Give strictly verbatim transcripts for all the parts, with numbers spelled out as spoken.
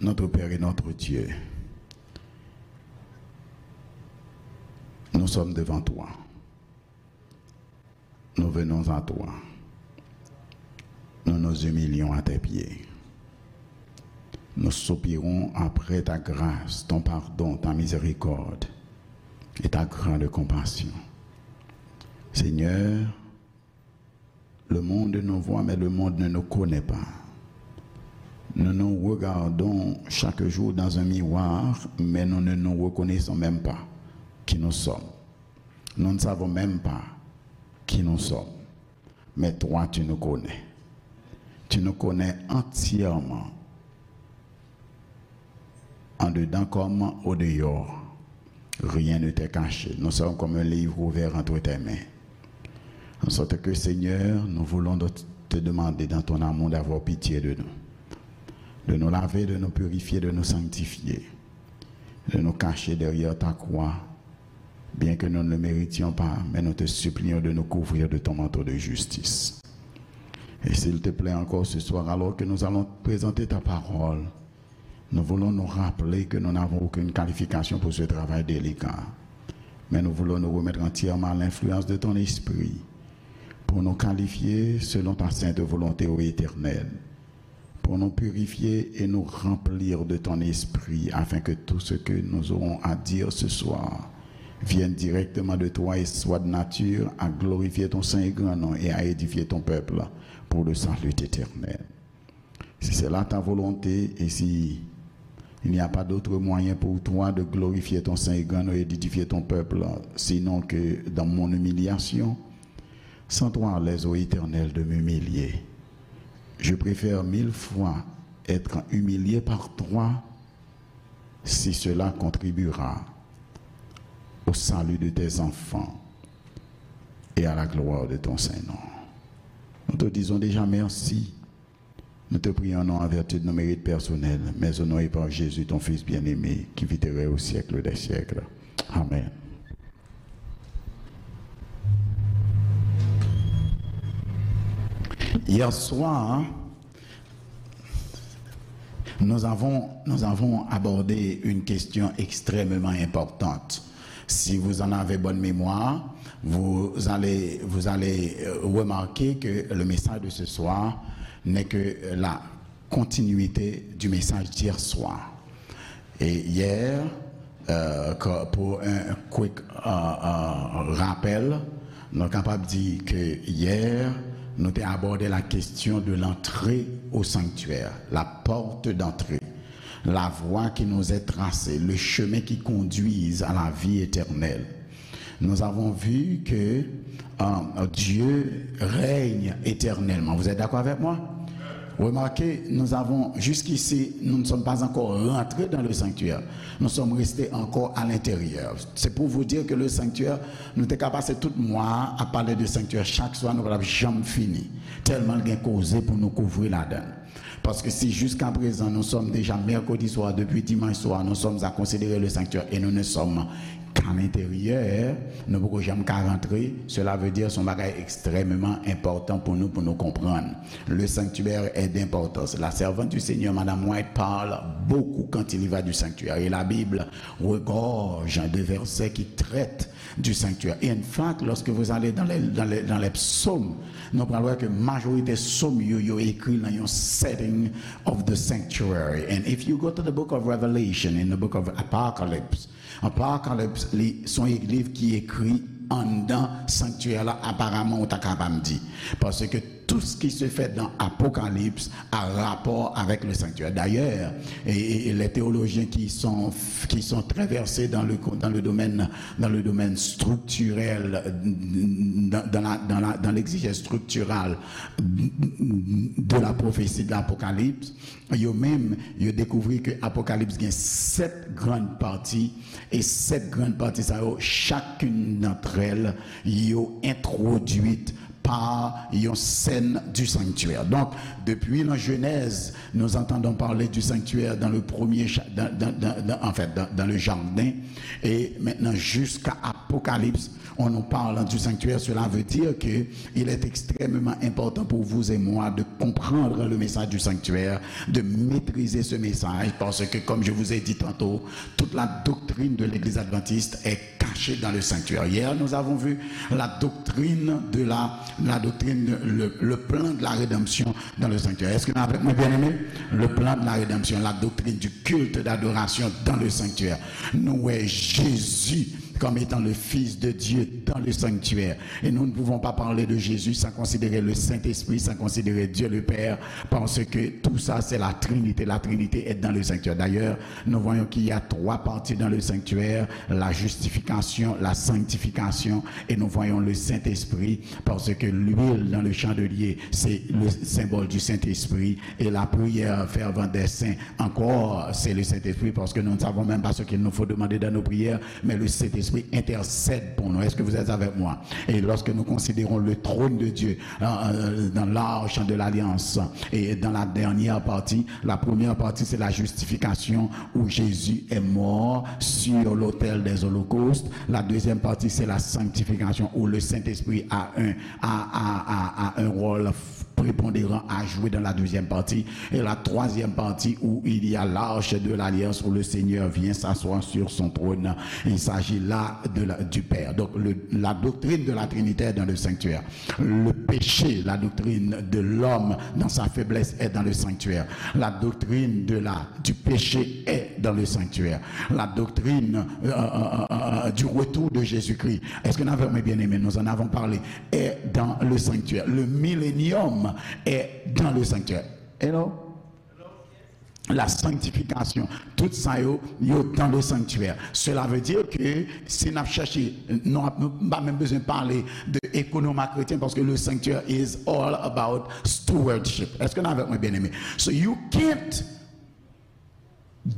Notre Père et notre Dieu, nous sommes devant toi. Nous venons à toi. Nous nous humilions à tes pieds. Nous soupirons après ta grâce, ton pardon, ta miséricorde et ta grande compassion. Seigneur, le monde nous voit, mais le monde ne nous connaît pas. Nous nous regardons chaque jour dans un miroir, mais nous ne nous reconnaissons même pas qui nous sommes. Nous ne savons même pas qui nous sommes. Mais toi, tu nous connais. Tu nous connais entièrement. En dedans comme au dehors, rien ne t'est caché. Nous sommes comme un livre ouvert entre tes mains. En sorte que, Seigneur, nous voulons de- te demander dans ton amour d'avoir pitié de nous, de nous laver, de nous purifier, de nous sanctifier, de nous cacher derrière ta croix, bien que nous ne le méritions pas, mais nous te supplions de nous couvrir de ton manteau de justice. Et s'il te plaît encore ce soir, alors que nous allons présenter ta parole, nous voulons nous rappeler que nous n'avons aucune qualification pour ce travail délicat. Mais nous voulons nous remettre entièrement à l'influence de ton esprit pour nous qualifier selon ta sainte volonté, ô Éternel, pour nous purifier et nous remplir de ton esprit, afin que tout ce que nous aurons à dire ce soir vienne directement de toi et soit de nature à glorifier ton saint et grand nom et à édifier ton peuple pour le salut éternel. Si c'est là ta volonté, et si il n'y a pas d'autre moyen pour toi de glorifier ton saint et grand nom et d'édifier ton peuple, sinon que dans mon humiliation, sens-toi à l'aise, ô Éternel, de m'humilier. Je préfère mille fois être humilié par toi si cela contribuera au salut de tes enfants et à la gloire de ton saint nom. Nous te disons déjà merci. Nous te prions non en vertu de nos mérites personnels, mais au nom et par Jésus, ton Fils bien-aimé, qui vit et règne au siècle des siècles. Amen. Hier soir, nous avons, nous avons abordé une question extrêmement importante. Si vous en avez bonne mémoire, vous allez, vous allez euh, remarquer que le message de ce soir n'est que la continuité du message d'hier soir. Et hier, euh, que- pour un quick euh, euh, rappel, nou kapab di ke yè, nou te abòde la kesyon de l'entrée au sanctuaire, la porte d'entrée, la voie qui nous est tracée, le chemin qui conduit à la vie éternelle. Nous avons vu que euh, Dieu règne éternellement. Vous êtes d'accord avec moi? Remarquez, nous avons, jusqu'ici, nous ne sommes pas encore rentrés dans le sanctuaire. Nous sommes restés encore à l'intérieur. C'est pour vous dire que le sanctuaire, nou te ka pase tout mwa a pale de sanctuaire. Chak swa, nou pa t ap janm fini. Tèlman l gen koze pou nou kouvri ladan l. Paske si jiskaprezan nou sòm deja mèkredi swa, depi dimanch swa, nous sommes à considérer le sanctuaire et nous ne sommes qu'à l'intérieur, nou poko janm ka rantre, cela veut dire se yon bagay ekstrèmeman enpòtan pou nou, pou nou konprann. Le sanctuaire est d'importance. La servante du Seigneur, Madame White, parle beaucoup quand il y va du sanctuaire. Et la Bible regorge de versets qui traitent du sanctuaire. In fact, lorsque vous allez dans les, dans les, dans les psaumes, nou pral wè ke majorite psaumes yo, yo écrit dans un setting of the sanctuary. And if you go to the book of Revelation, in the book of Apocalypse, Apocalypse, li, se yon liv ki ekri anndan sanctuaire la, aparaman, ou ta kapab di. Paske tout ce qui se fait dans Apocalypse a rapport avec le sanctuaire. D'ailleurs, et, et les théologiens qui sont, qui sont très versés dans le, dans le domaine, dans le domaine structurel, dans, dans la, dans la, dans l'exégèse structurale de la prophétie de l'Apocalypse, yo menm, yo dekouvri ke Apokalips gen sèt grann pati, e sèt grann pati sa yo, chacune d'entre elles, yo entwodwit par yon sèn du sanctuaire. Donc, depuis la Genèse, nous entendons parler du sanctuaire dans le premier cha- dans, dans- dans- dans- en fait, dans, dans le jardin. Et maintenant, jusqu'à Apocalypse, on nous parle du sanctuaire. Cela veut dire que il est extrêmement important pour vous et moi de comprendre le message du sanctuaire, de maîtriser ce message, parce que, comme je vous ai dit tantôt, toute la doctrine de l'Église adventiste est cachée dans le sanctuaire. Hier, nous avons vu la doctrine de la, la doctrine, le, le plan de la rédemption dans le sanctuaire. Est-ce que vous êtes avec moi, bien-aimés? Le plan de la rédemption, la doctrine du culte d'adoration dans le sanctuaire. Nous, ouais, Jésus comme étant le Fils de Dieu dans le sanctuaire. Et nous ne pouvons pas parler de Jésus sans considérer le Saint-Esprit, sans considérer Dieu le Père, parce que tout ça, c'est la Trinité. La Trinité est dans le sanctuaire. D'ailleurs, nous voyons qu'il y a trois parties dans le sanctuaire, la justification, la sanctification, et nous voyons le Saint-Esprit, parce que l'huile dans le chandelier, c'est le symbole du Saint-Esprit, et la prière fervente des saints, encore, c'est le Saint-Esprit, parce que nous ne savons même pas ce qu'il nous faut demander dans nos prières, mais le Saint-Esprit intercède pour nous. Est-ce que vous êtes avec moi? Et lorsque nous considérons le trône de Dieu, euh, euh, dans l'arche de l'alliance, et dans la dernière partie, la première partie, c'est la justification où Jésus est mort sur l'autel des holocaustes. La deuxième partie, c'est la sanctification où le Saint-Esprit a un, a, a, a, a un rôle prépondérant à jouer dans la deuxième partie. Et la troisième partie où il y a l'arche de l'alliance où le Seigneur vient s'asseoir sur son trône. Il s'agit là de la- du Père. Donc le- la doctrine de la Trinité est dans le sanctuaire. Le péché, la doctrine de l'homme dans sa faiblesse est dans le sanctuaire. La doctrine de la, du péché est dans le sanctuaire. La doctrine euh, euh, euh, euh, du retour de Jésus-Christ. Est-ce que nous avons bien aimé? Nous en avons parlé. Est dans le sanctuaire. Le millénium est dans le sanctuaire. Hello? La sanctification, tout ça, yo, yo dans le sanctuaire. Cela veut dire que si nous cherchons, nous n'avons pas même besoin de parler de économat chrétien parce que le sanctuaire is all about stewardship. Est-ce que nous avons bien aimé? So you can't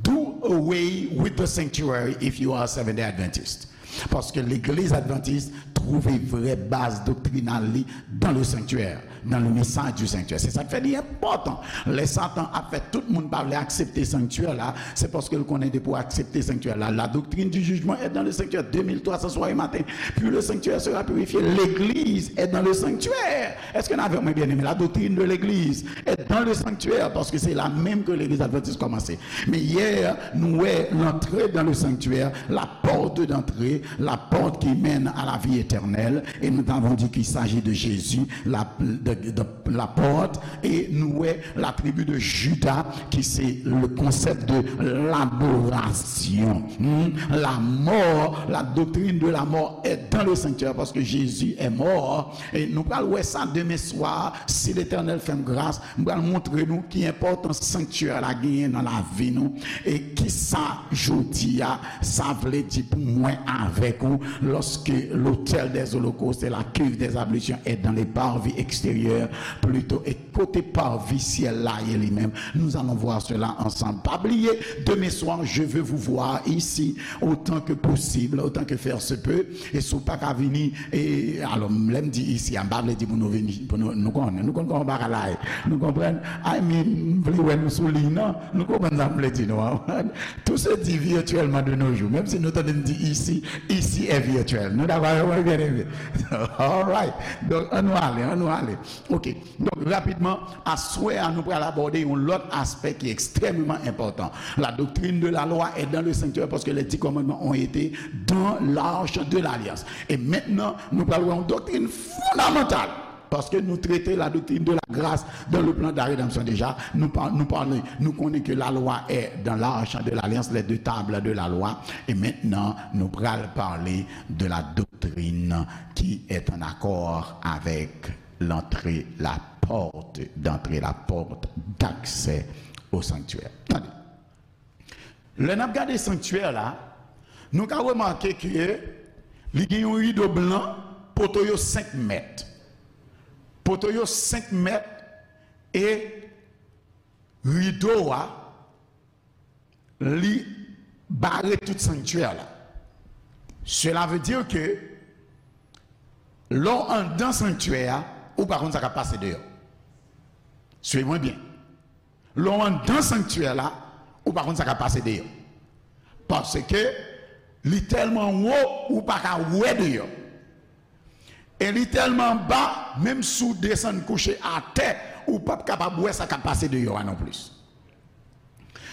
do away with the sanctuary if you are a Seventh Day Adventist. Paske legliz advantis twouve vrè baz doktrinal li dans le sanctuaire, dans le message du sanctuaire. Se sa k fè li enpòtan. Lè Satan ap fè tout moun pa vle aksepte sanktyè la, se paske l konnen depi w aksepte sanktyè la, la doctrine du jugement est dans le sanctuaire, deux mille trois cents soir et matin. Puis le sanctuaire sera purifié. L'église est dans le sanctuaire. Est-ce que nous avons bien aimé? La doctrine de l'église est dans le sanctuaire, parce que c'est là même que l'église adventiste commençait. Mais hier, nous avons l'entrée dans le sanctuaire, la porte d'entrée, la porte qui mène à la vie éternelle. Et nous avons dit qu'il s'agit de Jésus, la, de, de, la porte, et nous avons la tribu de Juda, qui c'est le concept de l'adoration. Hmm? La mort, la doctrine de la mort est dans le sanctuaire, parce que Jésus est mort. E nou pral wè sa demen swa, si Letènèl fè m gras, m pral montre nou ki enpòtans sanktyè la genyen nan lavi nou, e kisa jodi a sa vle di pou mwen avèk ou, lorsque l'autel des holocaustes et la cuve des ablutions est dans les parvis extérieurs, plutôt, e kote parvi syèl la ye li menm. Nous allons voir cela ensemble. Pa bliye, demain soir, je veux vous voir ici autant que possible, autant que faire se peut. E si w pa ka vini, e, alò, lè m di isi a, m pa vle di pou nou vini, pou nou, nou konnen, nou konn kòman bagay la ye. Nou konprann? I mean, m vle wè nou sou liy nan. Nou konprann sa m vle di nou an. Tout se dit virtuellement de nos jours. Menm si nou tande m di isi, isi è vityèl. Nou dakò avè mwen, byeneme? All right. Donk, ann nou ale, ann nou ale. Ok. Donk, rapidman, aswè a, nou pral abòde yon lòt aspè ki ekstrèmeman enpòtan. La doctrine de la loi est dans le sanctuaire parce que les dix commandements ont été dans l'arche de l'alliance. E mentnan, nou pral wè yon doktrin fondamantal. Paske nou trete la doctrine de la grâce dans le plan de la rédemption déjà. Nou pa, nou pale, nou konnen ke la lwa è dans l'arche de l'alliance, les deux tables de la loi. E mentnan, nou pral pale de la doctrine qui est en accord avec l'entrée, la porte d'entrée, la porte d'accès au sanctuaire. Tande. Lè n ap gade sanktyè la, nou ka remake ke li gen yon rido blan, poto yo senk mèt. Poto yo senk mèt e rido a, li bare tout sanktyè la. Cela veut dire que lè w anndan sanktyè a, ou pa konn sa k ap pase deyò. Swiv mwen byen. Lè w anndan sanktyè la, ou pa konn sa k ap pase deyò. Paske li tèlman wo, ou pa ka wè deyò. E li tèlman ba, menm si w desann kouche atè, ou p ap kapab wè sa k ap pase deyò a non plis.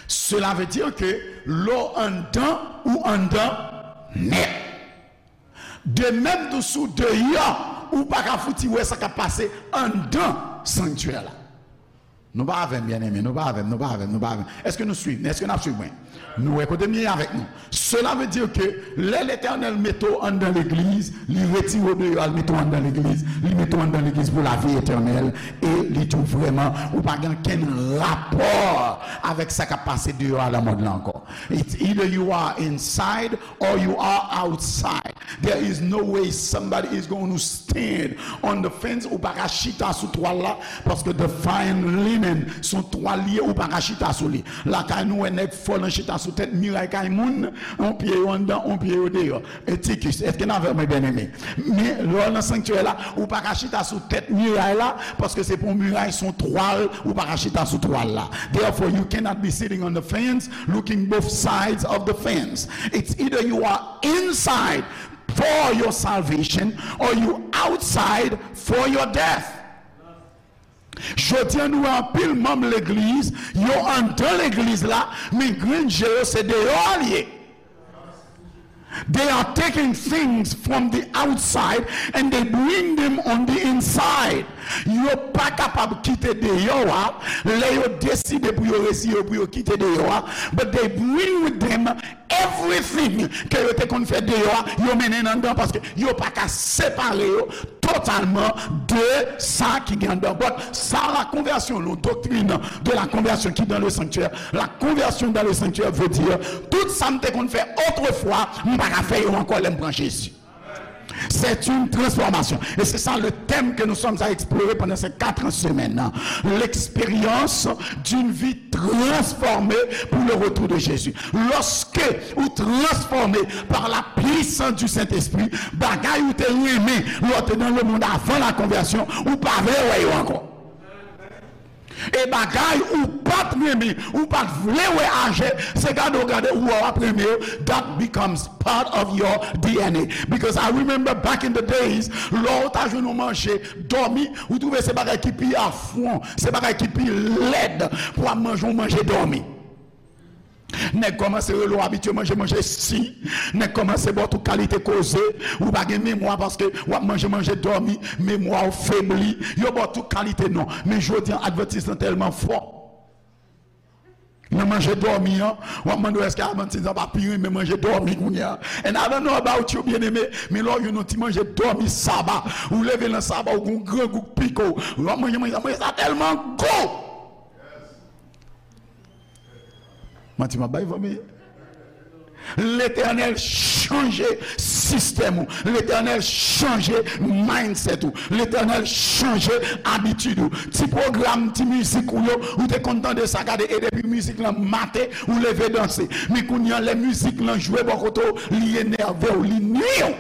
Cela veut dire que lè w anndan, ou anndan nèt. De menm tou si w deyò, ou pa ka fouti wè sa k ap pase anndan sanktyè la. Nou pa avè m, byeneme, nou pa avè m, nou pa avè m, nou pa avè m. Èske nou swiv? Èske n ap swiv mwen? Nou wè kote m ye avèk nou. Cela veut dire que lè Letènèl mete w anndan legliz, li retire w deyò a, li mete w anndan legliz, li mete w anndan legliz pou lavi etènèl, e li di w vrèman, ou pa gen okenn rapò avèk sa k ap pase deyò a nan mond lan ankò. It's either you are inside or you are outside. There is no way somebody is going to stand on the fence. Ou pa ka chita sou twal la, paske the fine linen, se yon twal li ye, ou pa ka chita sou li. Lakay nou wè nèg fò nan chita sou tèt miray kay moun, yon pye yo anndan, yon pye yo deyò. Etikis, èske n avè mwen, byeneme? Men lè w nan sanktyè la, ou pa ka chita sou tèt miray la, paske se pa yon miray, se yon twal, ou pa ka chita sou twal la. Therefore, you cannot be sitting on the fence, looking both sides of the fence. It's either you are inside for your salvation or you outside for your death. Jodi a, nou wè anpil manm legliz, yo anndan legliz la, men grenn je yo se deyò a l ye. They are taking things from the outside and they bring them on the inside. Yo pa kapab kite deyò a, lè yo deside pou yo retire yo, pou yo kite deyò a, but they bring with them everything ke yo te konn fè deyò a, yo mennen l anndan, paske yo pa ka separe yo totalman de sa ki gen anndan. But sa, la conversion, la doctrine de la conversion qui dans le sanctuaire, la conversion dans le sanctuaire veut dire, tout sa m te konn fè otrefwa, m pa ka fè yo ankò lè m pran Jezi. C'est une transformation. Et c'est ça le thème que nous sommes à explorer pendant ces quatre semaines. L'expérience d'une vie transformée pour le retour de Jésus. Lorsque ou transformé par la puissance du Saint-Esprit, bagay ou te renmen lè w te nan le monde avant la conversion, ou pa vle wè yo ankò. E bagay ou pa t renmen, ou pa t vle wè aje, se gade w gade ou wè w ap renmen yo, that becomes part of your D N A. Because I remember back in the days, lè w ta jwenn yon manje dòmi, ou twouve se bagay ki pi afwon, se bagay ki pi lèd pou w ap manje yon manje dòmi. Nèg kòmanse rele w abitye manje manje si. Nèg kòmanse ba w tout kalite koze. Ou pa gen memwa paske w ap manje manje dòmi. Memwa w febli. Yo ba w tout kalite non. Men jodi an, advantis lan tèlman fò nan manje dòmi an, w ap mande w èske advantis lan pa pi renmen manje dòmi kounye a. And I don't know about you, byeneme, men lè w jwenn yon ti manje dòmi saba, ou leve nan saba, ou gen yon grangou k pike w. W ap manje manje sa, manje sa tèlman gou. Manti m ap bay, fanmi? Letènèl chanje sistèm ou. Letènèl chanje mindset ou. Letènèl chanje abitid ou. Ti pwogram, ti mizik ou yo, ou te konn tande sa, gade, e depi mizik lan mate, ou leve danse. Men kounye a, lè mizik lan jwe bò kote w, li enève w, li nui w.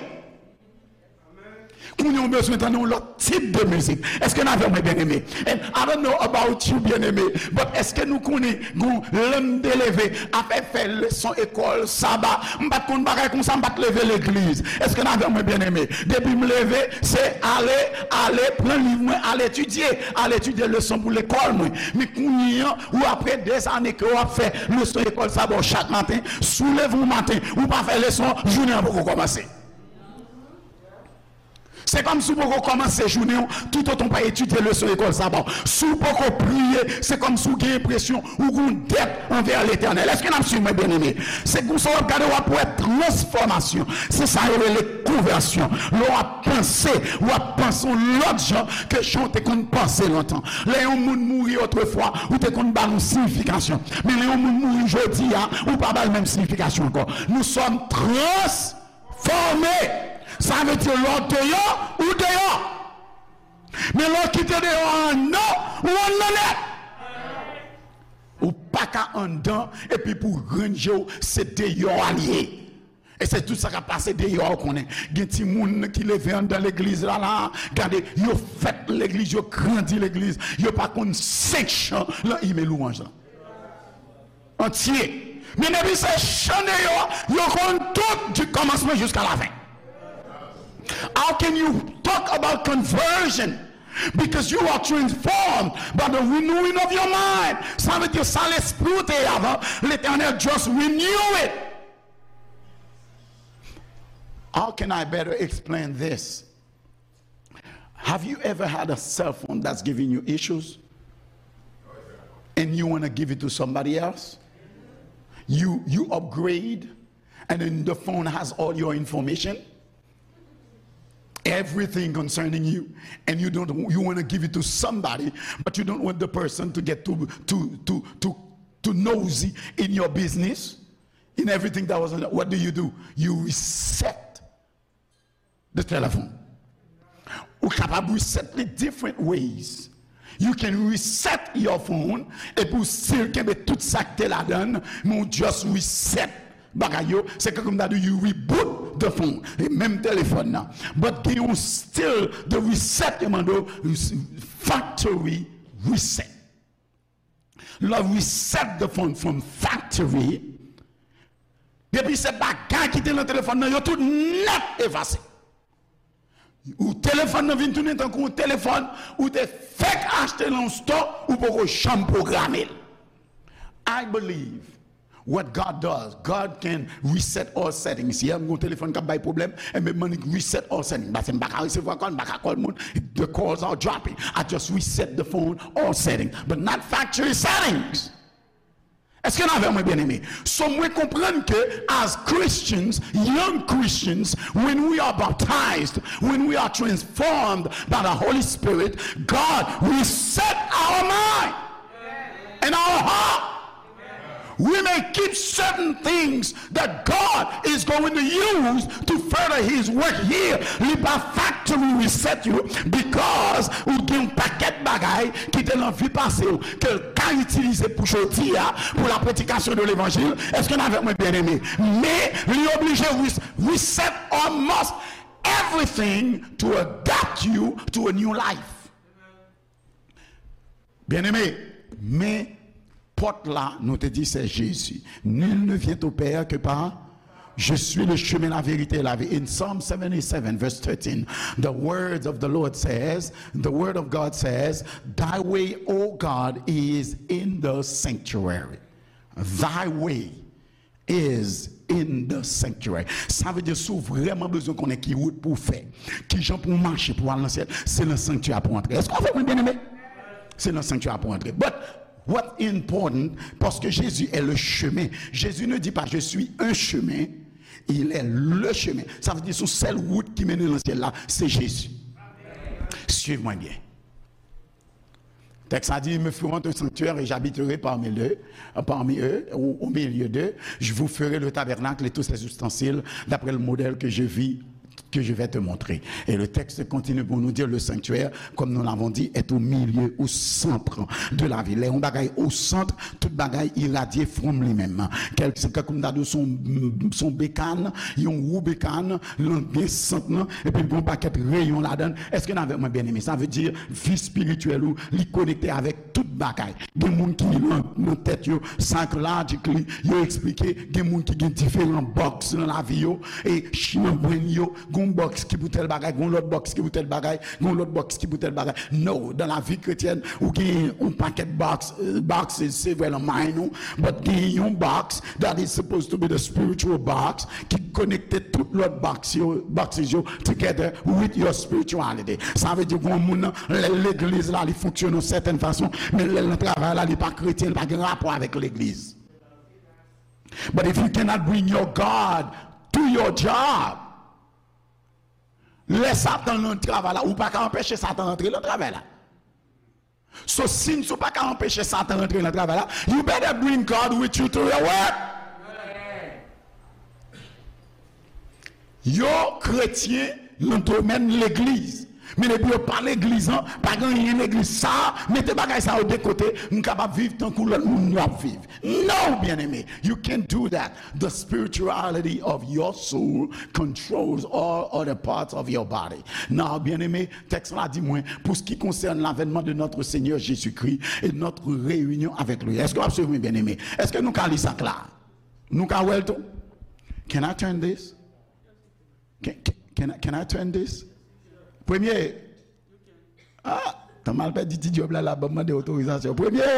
Kounye a w bezwen tande yon lòt tip de mizik. Èske n avè mwen, byeneme? And I don't know about you, byeneme, but èske nou konnen gon lè m te leve, afè fè leson ekòl saba, m pa t konn bagay konsa, m pa t leve legliz. Èske n avè mwen, byeneme? Depi m leve, se ale, ale, pran liv mwen, al etidye, al etidye leson pou lekòl mwen. Men kounye a, ou apre dèzane ke w ap fè leson ekòl saba w chak maten, si w leve yon maten, ou pa fè leson, jounen an poko kòmanse. Se kòmsi w poko kòmanse jounen w toutotan w pa etidye leson ekòl saba w. Si w poko priye, se kòmsi w gen enpresyon ou gen yon dèt anvè Letènèl. Èske n ap swiv mwen, byeneme? Se konsa w ap gade, w ap wè transfòmasyon. Se sa yo rele konvèsyon. Lè w ap panse, w ap panse yon lòt jan ke jan w te konn panse lontan. Lè yon moun mouri otrefwa, ou te konn ba l yon siyifikasyon. Men lè yon moun mouri jodi a, ou pa ba l menm siyifikasyon ankò. Nous sommes trans- fòme. Sa vle di lè w deyò, ou deyò. Men lè w kite deyò a anndan, ou anndan nèt. Ou pa ka anndan epi pou w rann je w, se deyò a l ye. E se tout sa k ap pase deyò, ou konnen. Gen timoun ki leve anndan legliz la, la, gade, yo fèt legliz, yo grandi legliz, yo pa konn senk chan lan imn louwanj lan. Antye. Men depi se chan deyò, yo konn tout, du kòmansman jiska lafen. How can you talk about conversion? Because you are transformed by the renewing of your mind. Sa vle di sa lespri w te ye avan, Letènèl just renew it. How can I better explain this? Have you ever had a cell phone that's giving you issues? And you want to give it to somebody else? You you upgrade, and then the phone has all your information, everything concerning you, and you don't you want to give it to somebody, but you don't want the person to get too too too too too nosy in your business, in everything that was. What do you do? You reset the telephone. Ou kapab reset li different ways. You can reset your phone, epi w still kenbe tout sa k te ladan l, men w just reset bagay yo. Se kòm ta di you reboot the phone. E menm telefòn nan. But gen yon still the reset yo mande w, factory reset. Lè w reset the phone from factory, depi se bagay ki te nan telefòn nan, yo tout nèt efase. Ou telefòn nan vin tounen tankou yon telefòn ou te fèk achte nan yon store, ou poko janm pwograme l. I believe what God does, God can reset all settings. Yè, m gen yon telefòn k ap bay pwoblèm, enben, m annik reset all settings. Paske m pa ka resevwa kòl, m pa ka call moun. The calls are dropping. I just reset the phone, all settings, but not factory settings. Èske n avè mwen, byeneme? So, mwen konprann ke, as Christians, young Christians, when we are baptized, when we are transformed by the Holy Spirit, God reset our mind and our heart. We may keep certain things that God is going to use to further his work here. Li pa factory reset yo, because ou gen yon pakèt bagay ki te nan vi pase w ke l ka itilize pou jodi a, pou la prédication de l'évangile. Èske n avèk mwen, byeneme? Men li oblije res- reset almost everything to adapt you to a new life. Byeneme, men pòt la, nou te di, se Jezi. Nul ne vient au Père que par Je suis le chemin, la vérité et la vie. In Psalm seventy-seven, verse thirteen, the words of the Lord says, the word of God says, "Thy way, O God, is in the sanctuary." Thy way is in the sanctuary. Sa vle di, si w vrèman bezwen konnen ki wout pou w fè, ki jan pou w mache pou w al nan syèl, se nan sanktyè a pou w antre. Èske w avèk mwen, byeneme? Se nan sanktyè a pou w antre. But what important, parce que Jésus est le chemin. Jésus ne dit pas, "Je suis un chemin", il est le chemin. Sa vle di, se yon sèl wout ki mennen nan syèl la, se Jezi. Suiv mwen byen. Tèks la di, "Ils me feront un sanctuaire et j'habiterai parmi eux, parmi eux, au, au milieu d'eux. Je vous ferai le tabernacle et tous ses ustensiles d'après le modèle que je vis, que je vais te montrer." Et le texte continue pour nous dire, le sanctuaire, comme nous l'avons dit, est au milieu, au centre de la vie. Lè yon bagay au centre, tout bagay iradye from li menm. Kèl, se kòm ta di w se yon, se yon bekan, yon wou bekan, lan gen sant lan, epi l gen yon pakèt reyon ladan l. Èske n avèk mwen, byeneme? Sa vle di, vi espirityèl ou, li konekte avèk tout bagay. Gen moun ki nan, nan tèt yo, psychologically, yo eksplike, gen moun ki gen diferan box nan lavi yo, e ch- nan brain yo, gen yon box ki pou tèl bagay, gen yon lòt box ki pou tèl bagay, gen yon lòt box ki pou tèl bagay. No, dans la vie chrétienne, ou gen yon pakèt box, euh, boxes, se vre nan mind ou, but gen yon box that is supposed to be the spiritual box, ki konekte tout lòt box yo, boxes yo together with your spirituality. Sa vle di, gen yon moun nan, lè legliz la, li fonksyone yon sètèn fason, men lè l nan travay la, li pa kretyen, li pa gen rapò avèk legliz. But if you cannot bring your God to your job, lè Satan nan travay la, ou pa ka anpeche Satan antre nan travay la. So, since ou pa ka anpeche Satan rantre nan travay la, you better bring God with you to your work. Yo kretyen nan domèn legliz, Men depi yo pa legliz an, pa gen anyen legliz sa, mete bagay sa yo de kote, m kapab viv tankou lòt moun yo ap viv. No, byeneme, you can't do that. The spirituality of your soul controls all other parts of your body. Now, byeneme, tèks la di mwen, pour ce qui concerne l'avènement de notre Seigneur Jésus-Christ et notre réunion avec lui. Èske w ap swiv mwen, byeneme? Èske nou ka li sa kla? Nou ka wè l tou? Can I turn this? Can, can, can I, can I turn this? Premye. Ah, tan m al pèdi ti djòb la, la ban m mande otorizasyon. Premye.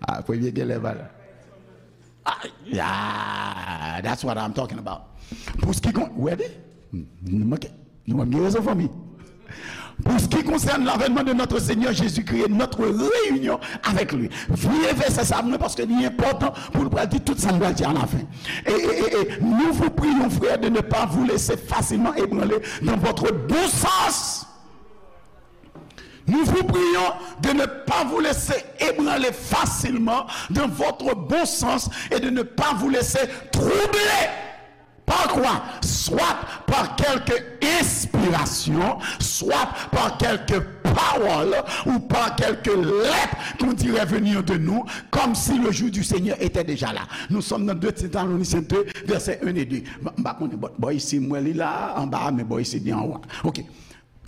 Ah, premye genlè pa la. Ah, yeah, that's what I'm talking about. Pour ce qui con-, ready? Nou manke, nou manke rezon, fanmi. Pour ce qui concerne l'avènement de notre Seigneur Jésus-Christ et notre réunion avec lui. Vye vèsè sa mwen, paske li enpòtan pou nou pral di tout sa nou pral di alafen. Et, et, et, et nous vous prions, frères, de ne pas vous laisser facilement ébranler dans votre bon sens. Nous vous prions de ne pas vous laisser ébranler facilement dans votre bon sens et de ne pas vous laisser troubler. Par quoi? Soit par quelque inspiration, soit par quelque parole ou par quelque lettre qu'on dirait venir de nous, comme si le jour du Seigneur était déjà là. Nous sommes dans deux Thessaloniciens deux, versets un et deux. M pa konnen, bò, bò isi m wè li la, anba, men bò isi li anwo. Ok.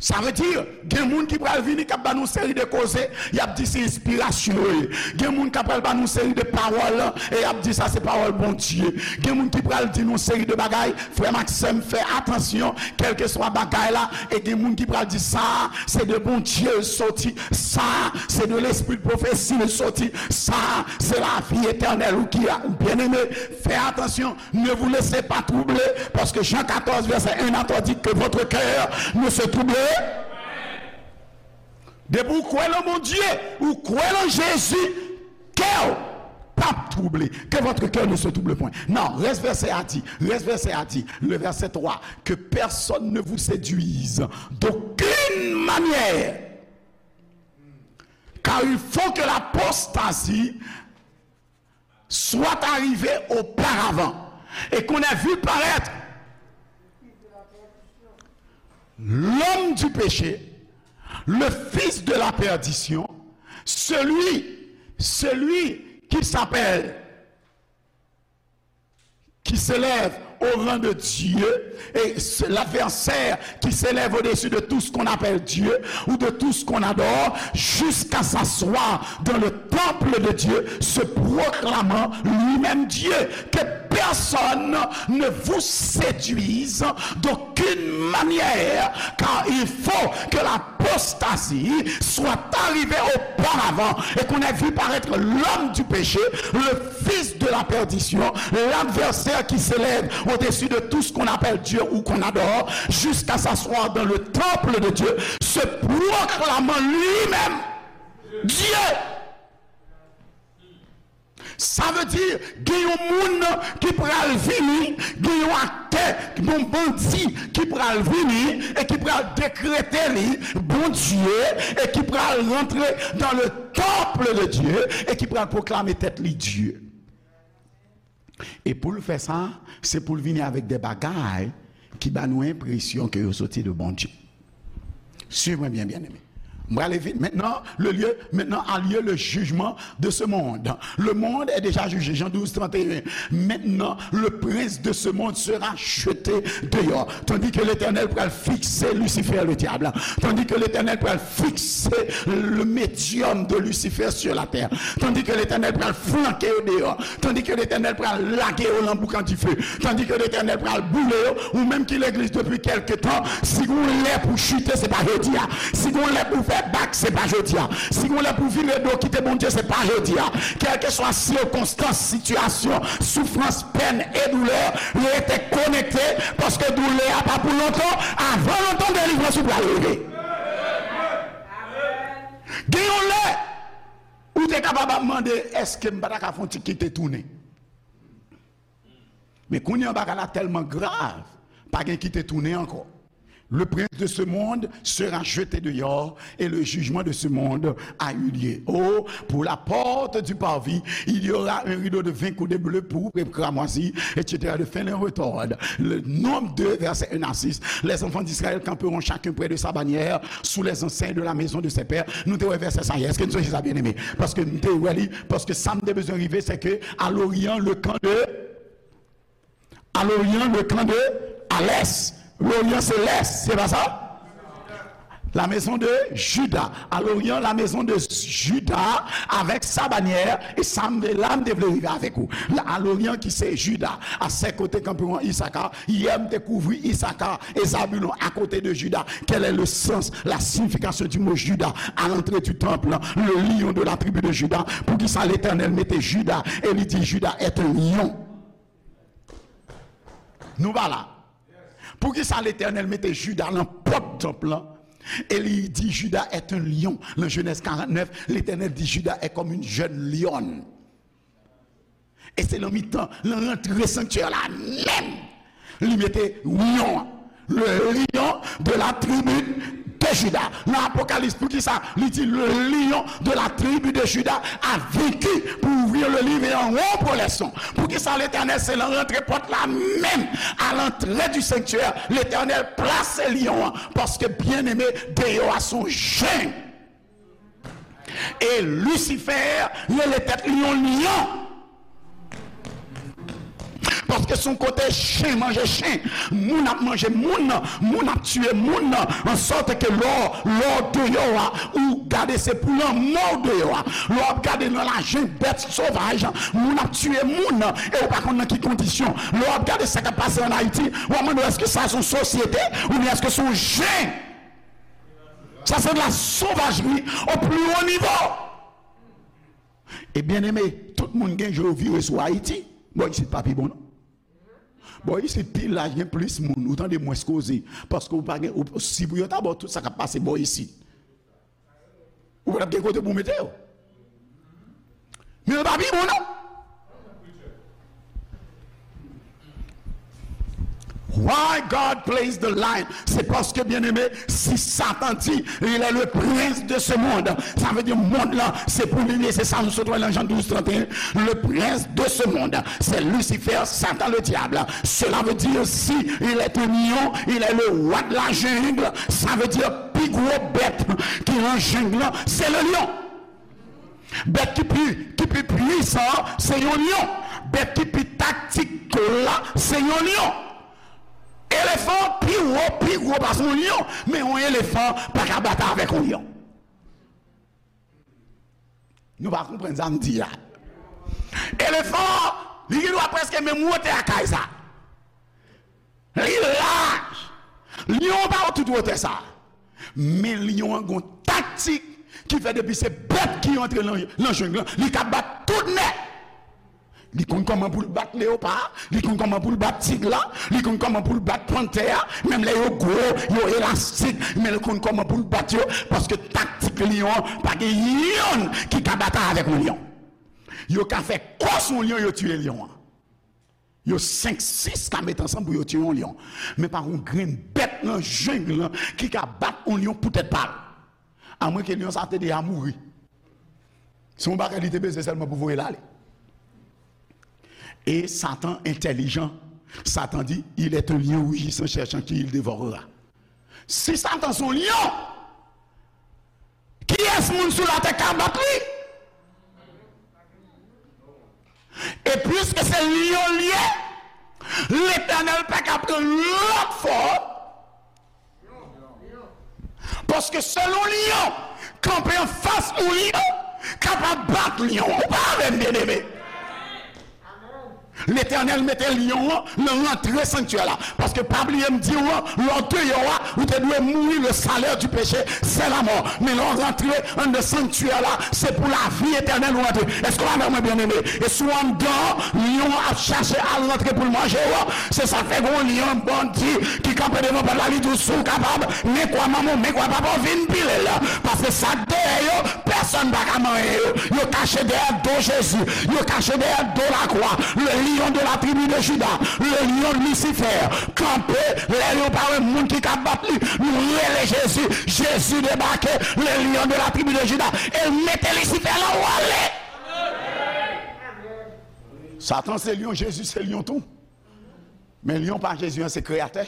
Sa vle di, gen moun ki pral vini k ap ba nou seri de koze, y ap di se enspirasyon yo ye. Gen moun k ap pral ba nou seri de pawòl, e y ap di sa se pawòl Bondye. Gen moun ki pral di nou seri de bagay, frè m ak sè m, fè atansyon, kèlkeswa bagay la, e gen moun ki pral di sa se de Bondye l soti, sa se de lespri de pwofesi l soti, sa se lavi etènèl ou ki a, byeneme, fè atansyon. Ne vous laissez pas troubler, parce que Jean quatorze, verset un à trois dit que votre cœur ne se trouble. Depi ou kwè nan Bondye, ou kwè nan Jezi, kè w p ap twouble. Que votre cœur ne se trouble point. Non, reste verset a di, reste verset a di, le verset trois, que personne ne vous séduise d'aucune manière, car il faut que l'apostasie soit arrivé auparavant, et qu'on ait vu paraître l'homme du péché, le fils de la perdition, celui, celui qui s'appelle, qui s'élève au rang de Dieu, et c'est l'adversaire qui s'élève au-dessus de tout ce qu'on appelle Dieu ou de tout ce qu'on adore, jusqu'à s'asseoir dans le temple de Dieu, se proclamant lui-même Dieu. Que personne ne vous séduise d'aucune manière, car il faut que l'apostasie soit arrivée auparavant et qu'on ait vu paraître l'homme du péché, le fils de la perdition, l'adversaire qui s'élève au-dessus de tout ce qu'on appelle Dieu ou qu'on adore, jusqu'à s'asseoir dans le temple de Dieu, se proclamant lui-même Dieu. Sa vle di, gen yon moun ki pral vini, gen yon aktè, yon bandi ki pral vini e ki pral dekrete li Bondye e ki pral rantre dans le temple de Dieu e ki pral pwoklame tèt li Dye. E pou l fè sa, se pou l vini avèk de bagay ki ba nou enpresyon ke yo soti de Bondye. Suiv mwen byen, byeneme. M prale vit. Maintenant, le lieu, maintenant a lieu le jugement de ce monde. Le monde est déjà jugé. Jean douze, trente et un. Maintenant, le prince de ce monde sera jeté dehors. Tandis que l'Éternel pral fikse Lucifer, le diable. Tandis que l'Éternel pral fikse le médium de Lucifer sur la terre. Tandis que l'Éternel pral flanke yo deyò. Tandis que l'Éternel pral lage yo nan boukan dife. Tandis que l'Éternel pral boule yo. Ou menm ki legliz depi kèlke tan, si gon lè pou chite, se pa jodi a. Si gon lè pou fè bak, se pa jodi a. Si gon lè pou vire do kite Bondye, se pa jodi a. Kèlkeswa sikonstans, sitiyasyon, soufrans, pèn e doulè, rete konekte, paske doulè a pa pou lontan. Avan lontan, delivrans ou pral rive. Gen yon lè, ou te kapab ap mande, èske m pa ta ka fè yon ti kite tounen? Men kounye a bagay la tèlman grav, pa gen kite tounen ankò. Le prince de ce monde sera jeté dehors et le jugement de ce monde a eu lieu. Oh, pour la porte du parvis, il y aura un rideau de vingt coudées bleues, pourpres et cramoisies, et cetera, de fines laines retors. Le Nombre deux, versets un à six. Les enfants d'Israël camperont chacun près de sa bannière, sous les enseignes de la maison de ses pères. Nou te wè vèsè sa yè. Èske n sonje sa, byeneme? Paske m te wè li, paske sa m te bezwen rive, se ke à l'Orient, le camp de, à l'Orient, le camp de, à l'Est. L'Orient, se Lès, se pa sa? La maison de Juda. À l'Orient, la maison de Juda avec sa bannière. E sa m te, la m te vle rive avèk ou. La, à l'Orient, ki se Juda. À ses côtés camperont Issachar. Yè, m te kouvri Issachar et Zabulon à côté de Juda. Quel est le sens, la signification du mot Juda à l'entrée du temple, le lion de la tribu de Juda? Poukisa Letènèl mete Juda e li di Juda est un lion? Nou pa la. Poukisa Letènèl mete Juda nan pòt tanp lan e li di Juda est un lion? Nan Genèse quarante-neuf, Letènèl di Juda est comme une jeune lionne. E se nan mitan, nan rantre sanktyè la menm, li mete lyon an. Le lion de la tribu de Juda. Nan Apocalypse, poukisa li di le lion de la tribu de Juda a vaincu pour ouvrir le livre et en rompre les sons? Poukisa Letènèl se nan rantre pòt la menm, à l'entrée du sanctuaire, Letènèl plase lyon an? Paske, byeneme, deyò a se yon jeng. E Lisifè rele tèt li yon lyon. Paske se yon kote chen manje chen, moun ap manje moun, moun ap tiye moun, an sòt ke lè w, lè w deyò a, ou gade se pou lanmò w deyò a. Lè w ap gade nan lajen bèt sovaj, moun ap tiye moun, e ou pa konn nan ki kondisyon. Lè w ap gade sa k ap pase ann Ayiti, w ap mande w èske sa se yon sosyete, oubyen èske se yon jen? Sa se de la sauvagerie au plus haut niveau. E byeneme, tout moun gen je yo vire sou Ayiti. Bò isit pa pi bon, non. Bò isit, pil laj gen plis moun. Ou tande mwens koze. Paske ou pa gen, ou, si pou yo ta ba w tout sa k ap pase bò isit, ou pa t ap gen kote pou w mete yo. Men yo pa pi bon, non. Why God plays the lion? Se paske, byeneme, si Satan di, il est le prince de ce monde, sa vle di mond lan se pou li, se sa nou sot wè nan Jan douz trant e en. Le prince de ce monde, c'est Lucifer, Satan le diable. Cela veut dire, si il est un lion, il est le roi de la jungle, sa vle di pi gwo bèt ki nan jeng lan, se le lion. Bèt ki pi, ki pi pwisan an, se yon lyon. Bèt ki pi taktikal la, se yon lyon. Elefan pi wo, pi gwo pase yon lyon, men yon elefan pa ka batay avèk yon lyon. Nou pa konprann sa m di a. Elefan, li gen dwa prèske menm wotè a kay sa. Li laj. Lyon an pa tout wotè sa. Men lyon an gon taktik ki fè depi se bèt ki rantre nan, nan jeng lan, li ka bat tout nèg. Li konn kòman pou l bat leyopa, li konn kòman pou l bat tig la, li konn kòman pou l bat pantè a, menm lè yo gwo, yo elastik, men li konn kòman pou l bat yo, paske taktik lyon an, pa gen yonn ki ka batay avèk yon lyon. Yo ka fè kò sou yon lyon, yo tiye lyon an. Yo senk, sis ka met ansanm pou yo tiye yon lyon. Men pa yon grenn bèt nan jeng lan ki ka bat yon lyon pou tèt pa l. Amwenke lyon sa te deja mouri. Se yon bagay li te bezwen sèlman pou voye l ale. E Satan entèlijan. Satan di, il est un lion rugissant, cherchant qui il dévorera. Si Satan se yon lyon, kiyès moun sou latè ka bat li? E piske se lyon li ye, Letènèl pa ka pran lòt fòm. Paske sèl yon lyon kanpe anfas yon lyon kapab bat lyon. Ou pa avè m, byeneme? Letènèl mete lyon an nan rantre sanktyè la. Paske pa bliye m di w, lè w deyò a, ou te dwe mouri, le salaire du péché, c'est la mort. Men lè w rantre anndan sanktyè la, se pou lavi etènèl ou rantre. Èske w avè mwen, byeneme? E si w anndan, lyon an ap chache al rantre pou l manje w. Se sa k fè gen yon lyon bandi ki kanpe devan pòt la, li di w si w kapab, men kwa manman w, men kwa papa w, vin pile l. Paske sa k dèyè yo, pèsonn pa ka manyen yo. Yo kache dèyè do Jezi. Yo kache dèyè do lakwa. Le lion de la tribu de Juda, le lion Lucifer, kanpe, lè yo pa wè moun ki ka bat li, nou rele Jezi, Jezi debake, le lion de la tribu de Juda, e l mete Lisifè la w ale. Satan se lion, Jezi se lion tou. Men lion pa Jezi an se kreyatè.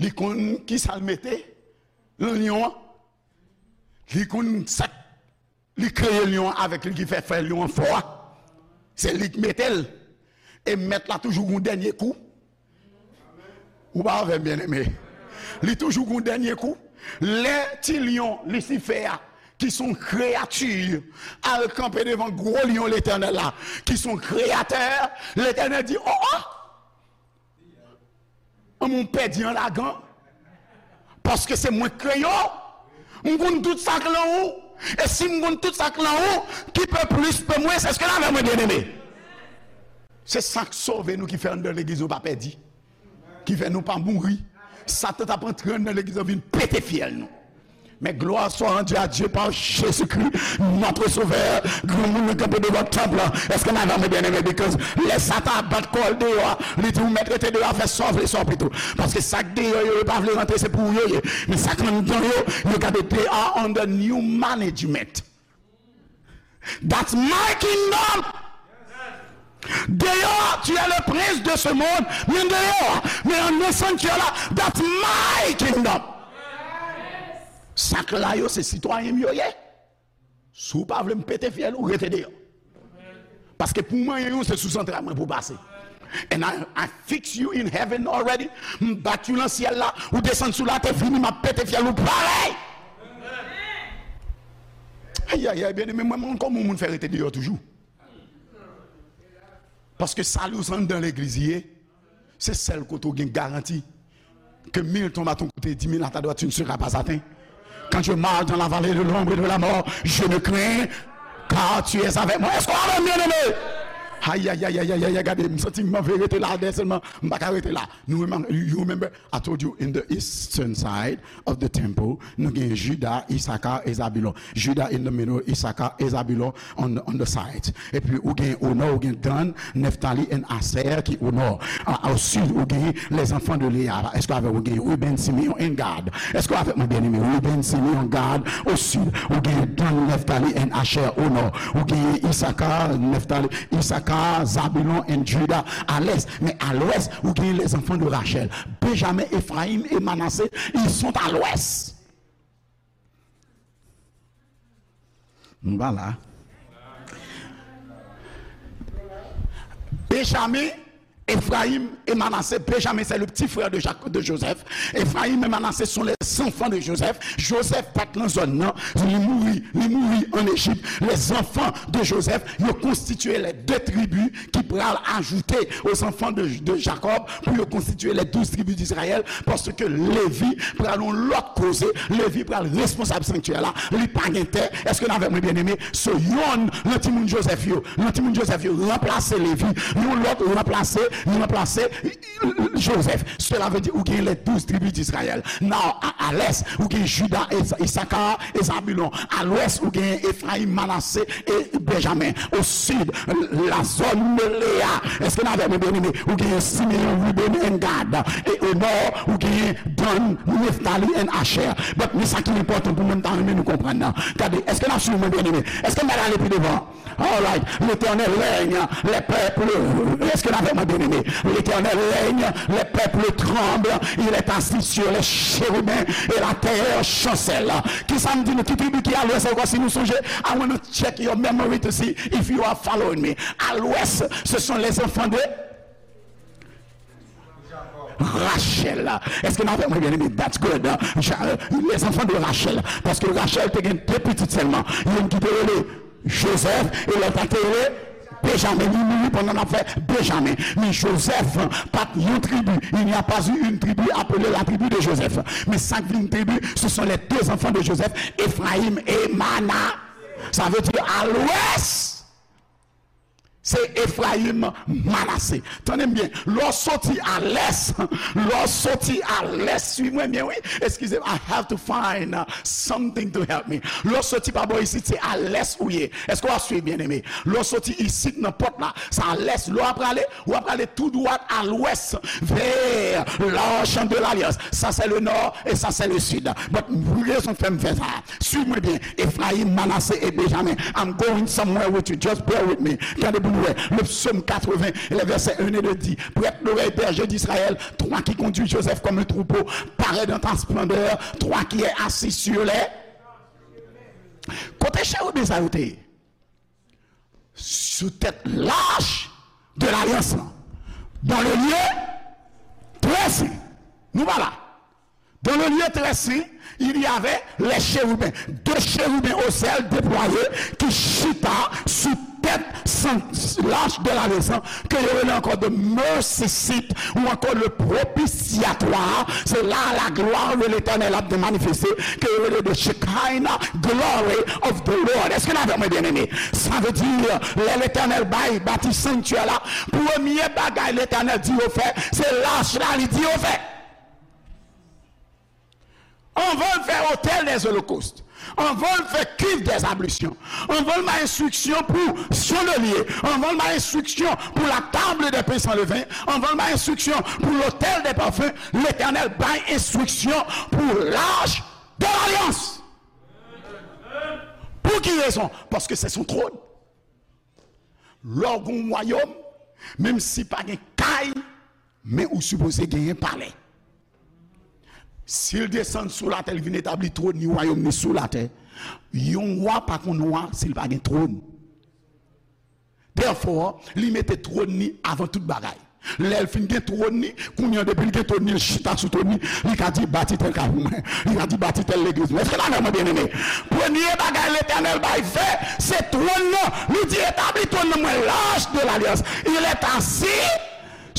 Li konn kisa l mete nan lion an. Li konn sa k li kreye lion an avèk li ki fè fè lion an fò a. Se li k mete l. E mèt la toujou gon dènye kou. Ou pa avè m, byeneme? Li toujou gon dènye kou. Lè ti lion Lisifè a, ki se yon kreyati, al kanpe devan gwo lion Letènèl la, ki se yon kreyatè, Letènèl di, o, o! An, mwen pèdi an lagan. Paske se mwen k kreye w. M konn tout sa k lan ou. E si m konn tout sa k lan ou, ki pe plis, pe mwens, èske n avè mwen, byeneme? Se sa k sove nou, ki fè anndan legliz nou pa pèdi, ki fè nou pa mouri. Satan t ap antre anndan legliz nou, vin pete fyèl nou. Mais gloire soit rendue à Dieu par Jésus-Christ, notre Sauveur. Granmoun nan kanpe devan tanp lan. Èske n avè mwen, byeneme? Because lè Satan ap bat kò l deyò a, li di, ou mèt rete deyò a, fè sa w vle, sa w pito. Paske sa k deyò yo, yo pa vle rantre, se pou ou yo ye. Men sa k anndan yo, yo gade, they are under new management. That's my kingdom. Deyò, tu es le prince de ce monde. Men deyò, men anndan sanktyè la, that's my kingdom. Sa k la yo, se sitwayen m yo ye. Si w pa vle m pete fyèl ou, rete deyò. Paske pou m manyen ou, se sou zantray mwen pou w pase. And I, I fix you in heaven already. M bat ou nan syèl la, ou desann sou latè, vini, m ap pete fyèl ou parèy. Ayayay, byeneme, mwen, mwen, kòman moun fè rete deyò toujou? Paske sali w se anndan legliz li ye. Se sèl kote w gen garanti. Que mille tombent à ton côté, dix mille à ta droite, tu ne seras pas atteint. Quand je marche dans la vallée de l'ombre et de la mort, je ne crains, car tu es avec moi. Èske w avè m, byeneme? Ayayayayay, gade, m santi m anvi rete la dèyè sèlman, m pa ka rete la. Nou remem-, you remember, I told you in the eastern side of the temple, nou gen Juda, Isaka, e Zabilon. Juda in the middle, Isaka, e Zabilon on, on the side. Epi ou gen o nò, ou gen Dan, Neftali and Aser ki o nò. A, o sid, ou gen les enfants de Léa. Èske avè ou gen Ruben, Simeon and Gad? Èske avè mwen, byeneme? Ruben, Simeon, Gad, o sid. Ou gen Dan, Neftali and Asher o nò. Ou gen Isaka, Neftali, Isaka, Zabilon and Juda a lès. Men a lwès, ou gen les enfants de Rachel. Benjamin, Ephraim et Manassé, ils sont à l'ouest. Nou pa la. Benjamin, Ephraim et Manassé. Benjamin, c'est le petit frère de Jacques, de Joseph. Ephraim et Manassé sont les enfants de Joseph. Joseph pa t nan zòn nan. Li mouri, li mouri an Ejip. Les enfants de Joseph, yo konstitye les deux tribus ki pral ajoute aux enfants de, de Jacob pou yo konstitye les douze tribus d'Israël, paske Levi pral yon lòt koze, Levi pral responsab sanktyè la, li pa gen tè. Èske n avè mwen, byeneme? So, yonn nan timoun Joseph yo, nan timoun Joseph yo, ranplase Levi, yon lòt ranplase, ranplase Joseph. Cela veut dire ou gen les douze tribus d'Israël. Now, a, a l'est, ou gen Juda, e, Isaka, e Zabilon. A l'ouest, ou gen Ephraim, Manassé e Benjamin. Au sud, la zone de Léa. Èske n avè mwen, byeneme? Ou gen Simeon, Ruben and Gad. E au nord, ou gen Dan, Neftali and Asher. But, men sa ki enpòtan pou mwen, m ta renmen nou konprann nan. Gade, èske n ap swiv mwen, byeneme? Èske m pa ale pi devan? All right. L'Éternel règne, les peuples, èske n avè mwen, byeneme? L'Éternel règne, les peuples tremblent, il est assis sur les chérubins et la terre chancelle. Kisa m di nou, ki tribi ki a lwès ankò, si nou sonje? I wanna check your memory to see if you are following me. A lwès, ce sont les enfants de Rachel. Èske n avè mwen, byeneme? That's good. Ja-, les enfants de Rachel. Paske Rachel te gen de pitit sèlman. Youn ki te rele Joseph e lòt la te rele Benjamin. Li mouri pandan l ap fè Benjamin. Men Joseph pa t yon tribi. Il n'y a pas eu une tribu appelée la tribu de Joseph. Men sa k vin tribi, ce sont les deux enfants de Joseph, Ephraim et Mana. Sa vle di a lwès. Se Efrayim, Manase. Tande m byen. Lè w soti a lès, lè w soti a lès, swiv mwen byen, wi. Eskize m, I have to find uh, something to help me. Lè w soti pa bò isit, se a lès ou ye. Èske w ap swiv, byeneme? Lè w soti isit nan pòt la, se a lès. Lè w ap prale, w ap prale tou dwat a lwès, vers l'arche de l'alliance. Ça, c'est le nord et ça, c'est le sud. But rezon k fè m fè sa. Swiv mwen byen. Efrayim, Manase e Benjamen. I'm going somewhere with you. Just bear with me. Gade pou nou wè. Le psaume quatre-vingts, le verset un et deux dit, prête l'oreille, berger d'Israël, toi qui conduis Joseph comme un troupeau, parais dans ta splendeur, toi qui es assis sur les. Kote cheriben sa yo te ye? Sou tèt lach de lalyans lan. Dans le lieu très saint. Nou pa la. Dans le lieu très saint, il y avait les chérubins, deux chérubins au ciel déployés qui chita sous tête sans lâche de la raison, que yo rele ankò the mercy seat ou encore le propitiatoire. C'est là la gloire de l'Éternel a manifesté, que yo rele the Shekinah glory of the Lord. Est-ce que la vraiment bien aimé? Ça veut dire, lè Letènèl bay bati sanktyè la, premye bagay Letènèl di yo fè, se lach la li di yo fè. Anvan l fè otèl dè zolokòst, anvan l fè kiv dè zablisyon, anvan l bay enstriksyon pou chandelier, anvan l bay enstriksyon pou la table des pains sans levain, anvan l bay enstriksyon pou lotèl dè pafen, Letènèl bay enstriksyon pou lach de lalyans. Pou ki rezon? Paske se son twòn. Lè w gen yon wayòm, menm si pa gen kay, men ou sipoze genyen palè. Si l desann sou latè, li vin etabli twòn li, wayòm li sou latè, yon wa pa konn wa si l pa gen twòn. Therefore, li mete twòn li avan tout bagay. Lè l fin gen twòn li, kounye a depi l gen twòn li, l chita sou twòn li, li ka di bati tèl kay pou mwen, li ka di bati tèl legliz mwen. Èske n avè mwen, byeneme? Premye bagay Letènèl bay fè, se twòn nan. Li di etabli twòn nan mwen, lach de lalyans. Il est assis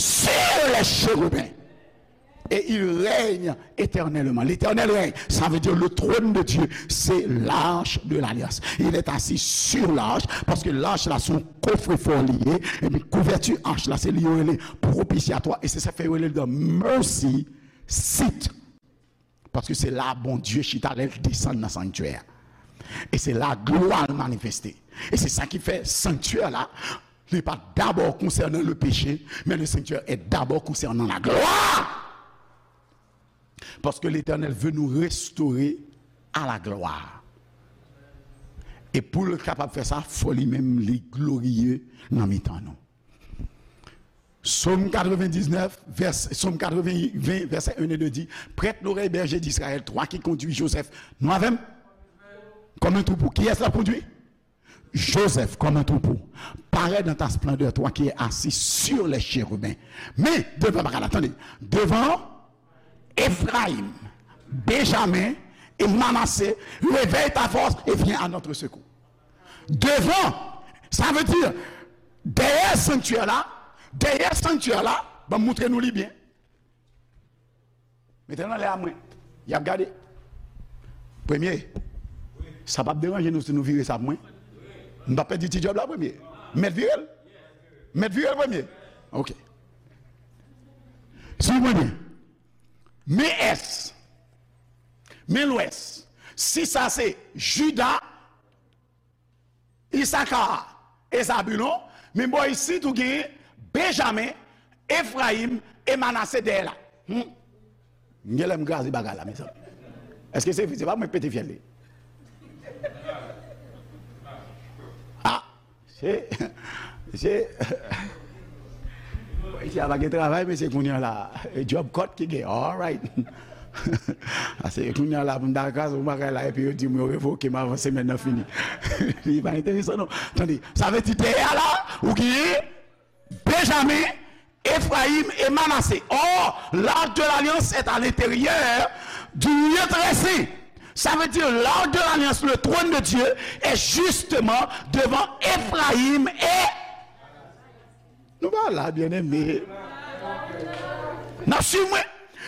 sur les chérubins. Et il règne éternellement. L'Éternel règne. Ça veut dire le trône de Dieu, c'est l'arche de l'alliance. Il est assis sur l'arche, paske lach la se yon kofrefò li ye, epi kouvèti ach la, se li yo rele propisyatwa, e se sa fè yo rele the mercy seat. Paske se la Bondye chita lè l desann nan sanktyè a. E se la glwa l manifeste. E se sa ki fè sanktyè la, li pa dabò konsènan le péché, men le sanktyè est d'abord concernant la gloire. Paske Letènèl vle nou restore a la glwa. E pou l kapab fè sa, fò li menm li gloriye nan mitan nou. Sòm katrevenndiznèf, vès, Sòm katrevennven, vèsè en e de di, prête l'oreille, berger d'Israël, toi qui conduis Joseph. Nou avè m? Kòm yon twoupo. Kiyès l ap kondui? Joseph, comme un troupeau, parais dans ta splendeur, toi qui es assis sur les chérubins. Men, devan, bagay la, tande, devan Efrayim, Benjamen e Manase, réveille ta force et viens à notre secours. Devan, sa vle di, dèyè sanktyè la, dèyè sanktyè la, ban m montre nou li byen. Mete l nan lè a mwen. Y ap gade. Premye, sa p ap deranje nou si nou vire sa pou mwen? M p ap pèdi ti djòb la premye. M mèt vire l? M mèt vire l premye? Ok. Swiv mwen byen. Men ès. Men lwès. Si sa se Jida, Isaka e Zabilon, men bò isit ou genyen Benjamen, Efrayim e Manase dèyè la. Hmm. M gen lè m kraze bagay la, mezanmi. Èske se vre? Se pa mwen k pete fyèl li. Ah, se, se, isi a pa gen travay, mesye, kounye a la. E djòb kòt ki gen. All right. Ase kounye a la pou m ta kraze yon bagay la epi yo di m yo revoke m avan semèn nan fini. Li pa enteresan non. Tande, sa vle di dèyè a la, ou genyen Benjamen, Efrayim e Manase. Or, l'arche de l'alliance est à l'intérieur du lieu très saint. Ça veut dire l'arche de l'alliance, le trône de Dieu, est justement devant Efrayim e Nou pa la, byeneme. N ap swiv mwen.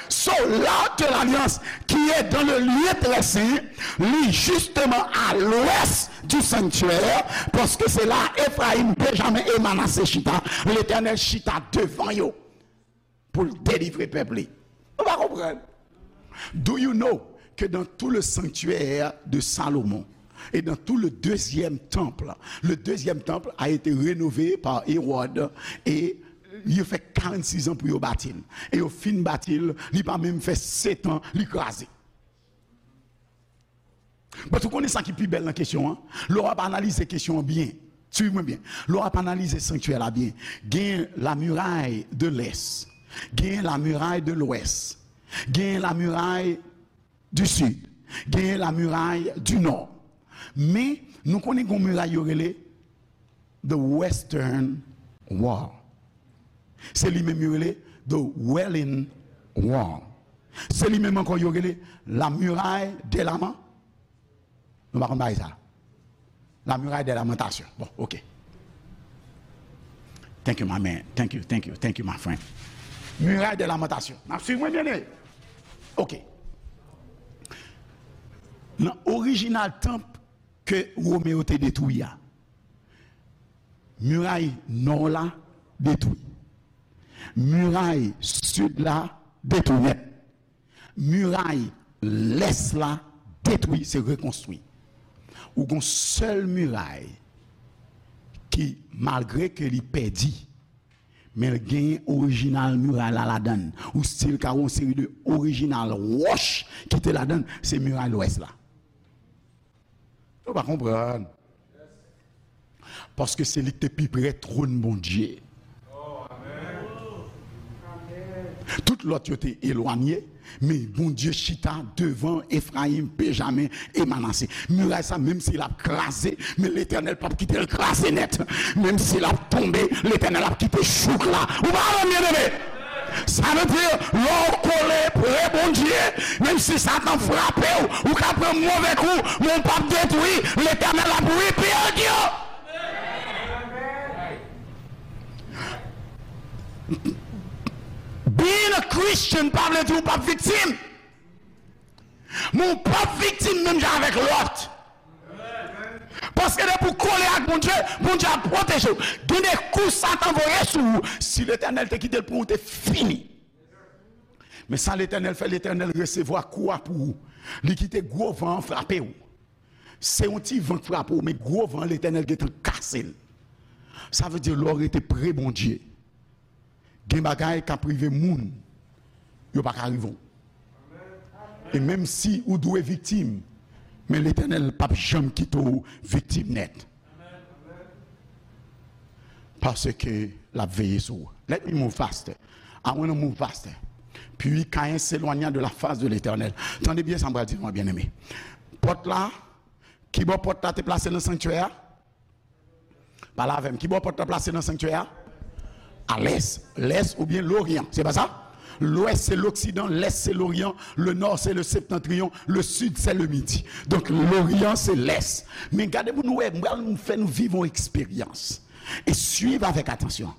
So, l'arche de l'alliance qui est dans le lieu très saint, li justement à l'ouest du sanctuaire, paske se la Efrayim, Benjamen e Manase chita. Letènèl chita devan yo pou l delivre pèp li. Ou pa konprann? Do you know que dans tout le sanctuaire de Salomon et dans tout le deuxième temple, le deuxième temple a été rénové par Hérode et yo fè karannsis an pou yo bati l. E yo fin bati l, li pa menm fè sèt an, li kraze. But ou konnen sa ki pi bèl nan kesyon an? Lè w ap analize kesyon an byen, swiv mwen byen. Lè w ap analize sanktyè la byen, gen la muraille de l'est, gen la muraille de l'ouest, gen la muraille du sud, gen la muraille du nord. Men, nou konnen gen yon miray yo rele the Western Wall. Se li menm yo rele the Wailing Wall. Se li menm ankò yo rele la muraille des lamen-, nou pa konn bagay sa. La muraille des lamentations. Bon, ok. Thank you, my man. Thank you, thank you, thank you, my friend. Muraille des lamentations. N ap swiv mwen, byeneme? Ok. Nan orijinal tanp ke Women yo te detwi a, miray nò la detwi. Miray sid la detwi nèt. Miray lès la detwi, se rekonstwi. Ou gon sèl miray ki, malgre ke li pèdi, men l genyen orijinal miray la ladan l. Ou still ka wè yon seri de orijinal wòch ki te ladan l, se miray lwès la. Ou pa konprann. Paske se li ki te pi pre twòn Bondye. Tout lòt yo te elwanye, men Bondye chita devan Efrayim, Benjamen e Manase. Miray sa, menm si l ap kraze, men Letènèl p ap kite l kraze nèt. Menm si l ap tonbe, Letènèl ap kite chouk la. Ou pa konprann, byeneme? Sa vle di, lè w kole pre Bondye, menm si Satan frape w, ou ka pran move kou, men w p ap detwi, Letènèl ap rebuild you. Being a Christian pa vle di w p ap viktim. Men w p ap viktim menm jan avèk Lòt. Paske depi w kole ak Bondye, Bondye ap pwoteje w. Gen de kou Satan voye sou ou, si Letènèl te kite l pran w, ou te fini. Men sa Letènèl fè, Letènèl resevwa kou a pou ou. Li kite gwo van an frape w. Se yon ti van k frape w, men gwo van an, Letènèl gentan kase l. Sa vle di lè w rete pre Bondye, gen bagay k ap rive moun, yo pa ka rive w. E menm si ou dwe viktim, men Letènèl p ap janm kite w viktim nèt. Paske l ap veye sou ou. Let me move faster. I wanna move faster. Puis Caïn s'éloigna de la face de l'Éternel. Tande byen sa m pral di nou an, byeneme. Pòt la, kibò pòt la te plase nan sanktyè a? Pale avè m. Kibò pòt la plase nan sanktyè a? A lès. Lès oubyen loryan. Se pa sa? Lwès se loksidan, lès se loryan, le nò se le septantriyon, le sid se le midi. Donk, loryan se lès. Men gade pou nou wè, m pral fè nou viv yon eksperyans. E swiv avèk atansyon.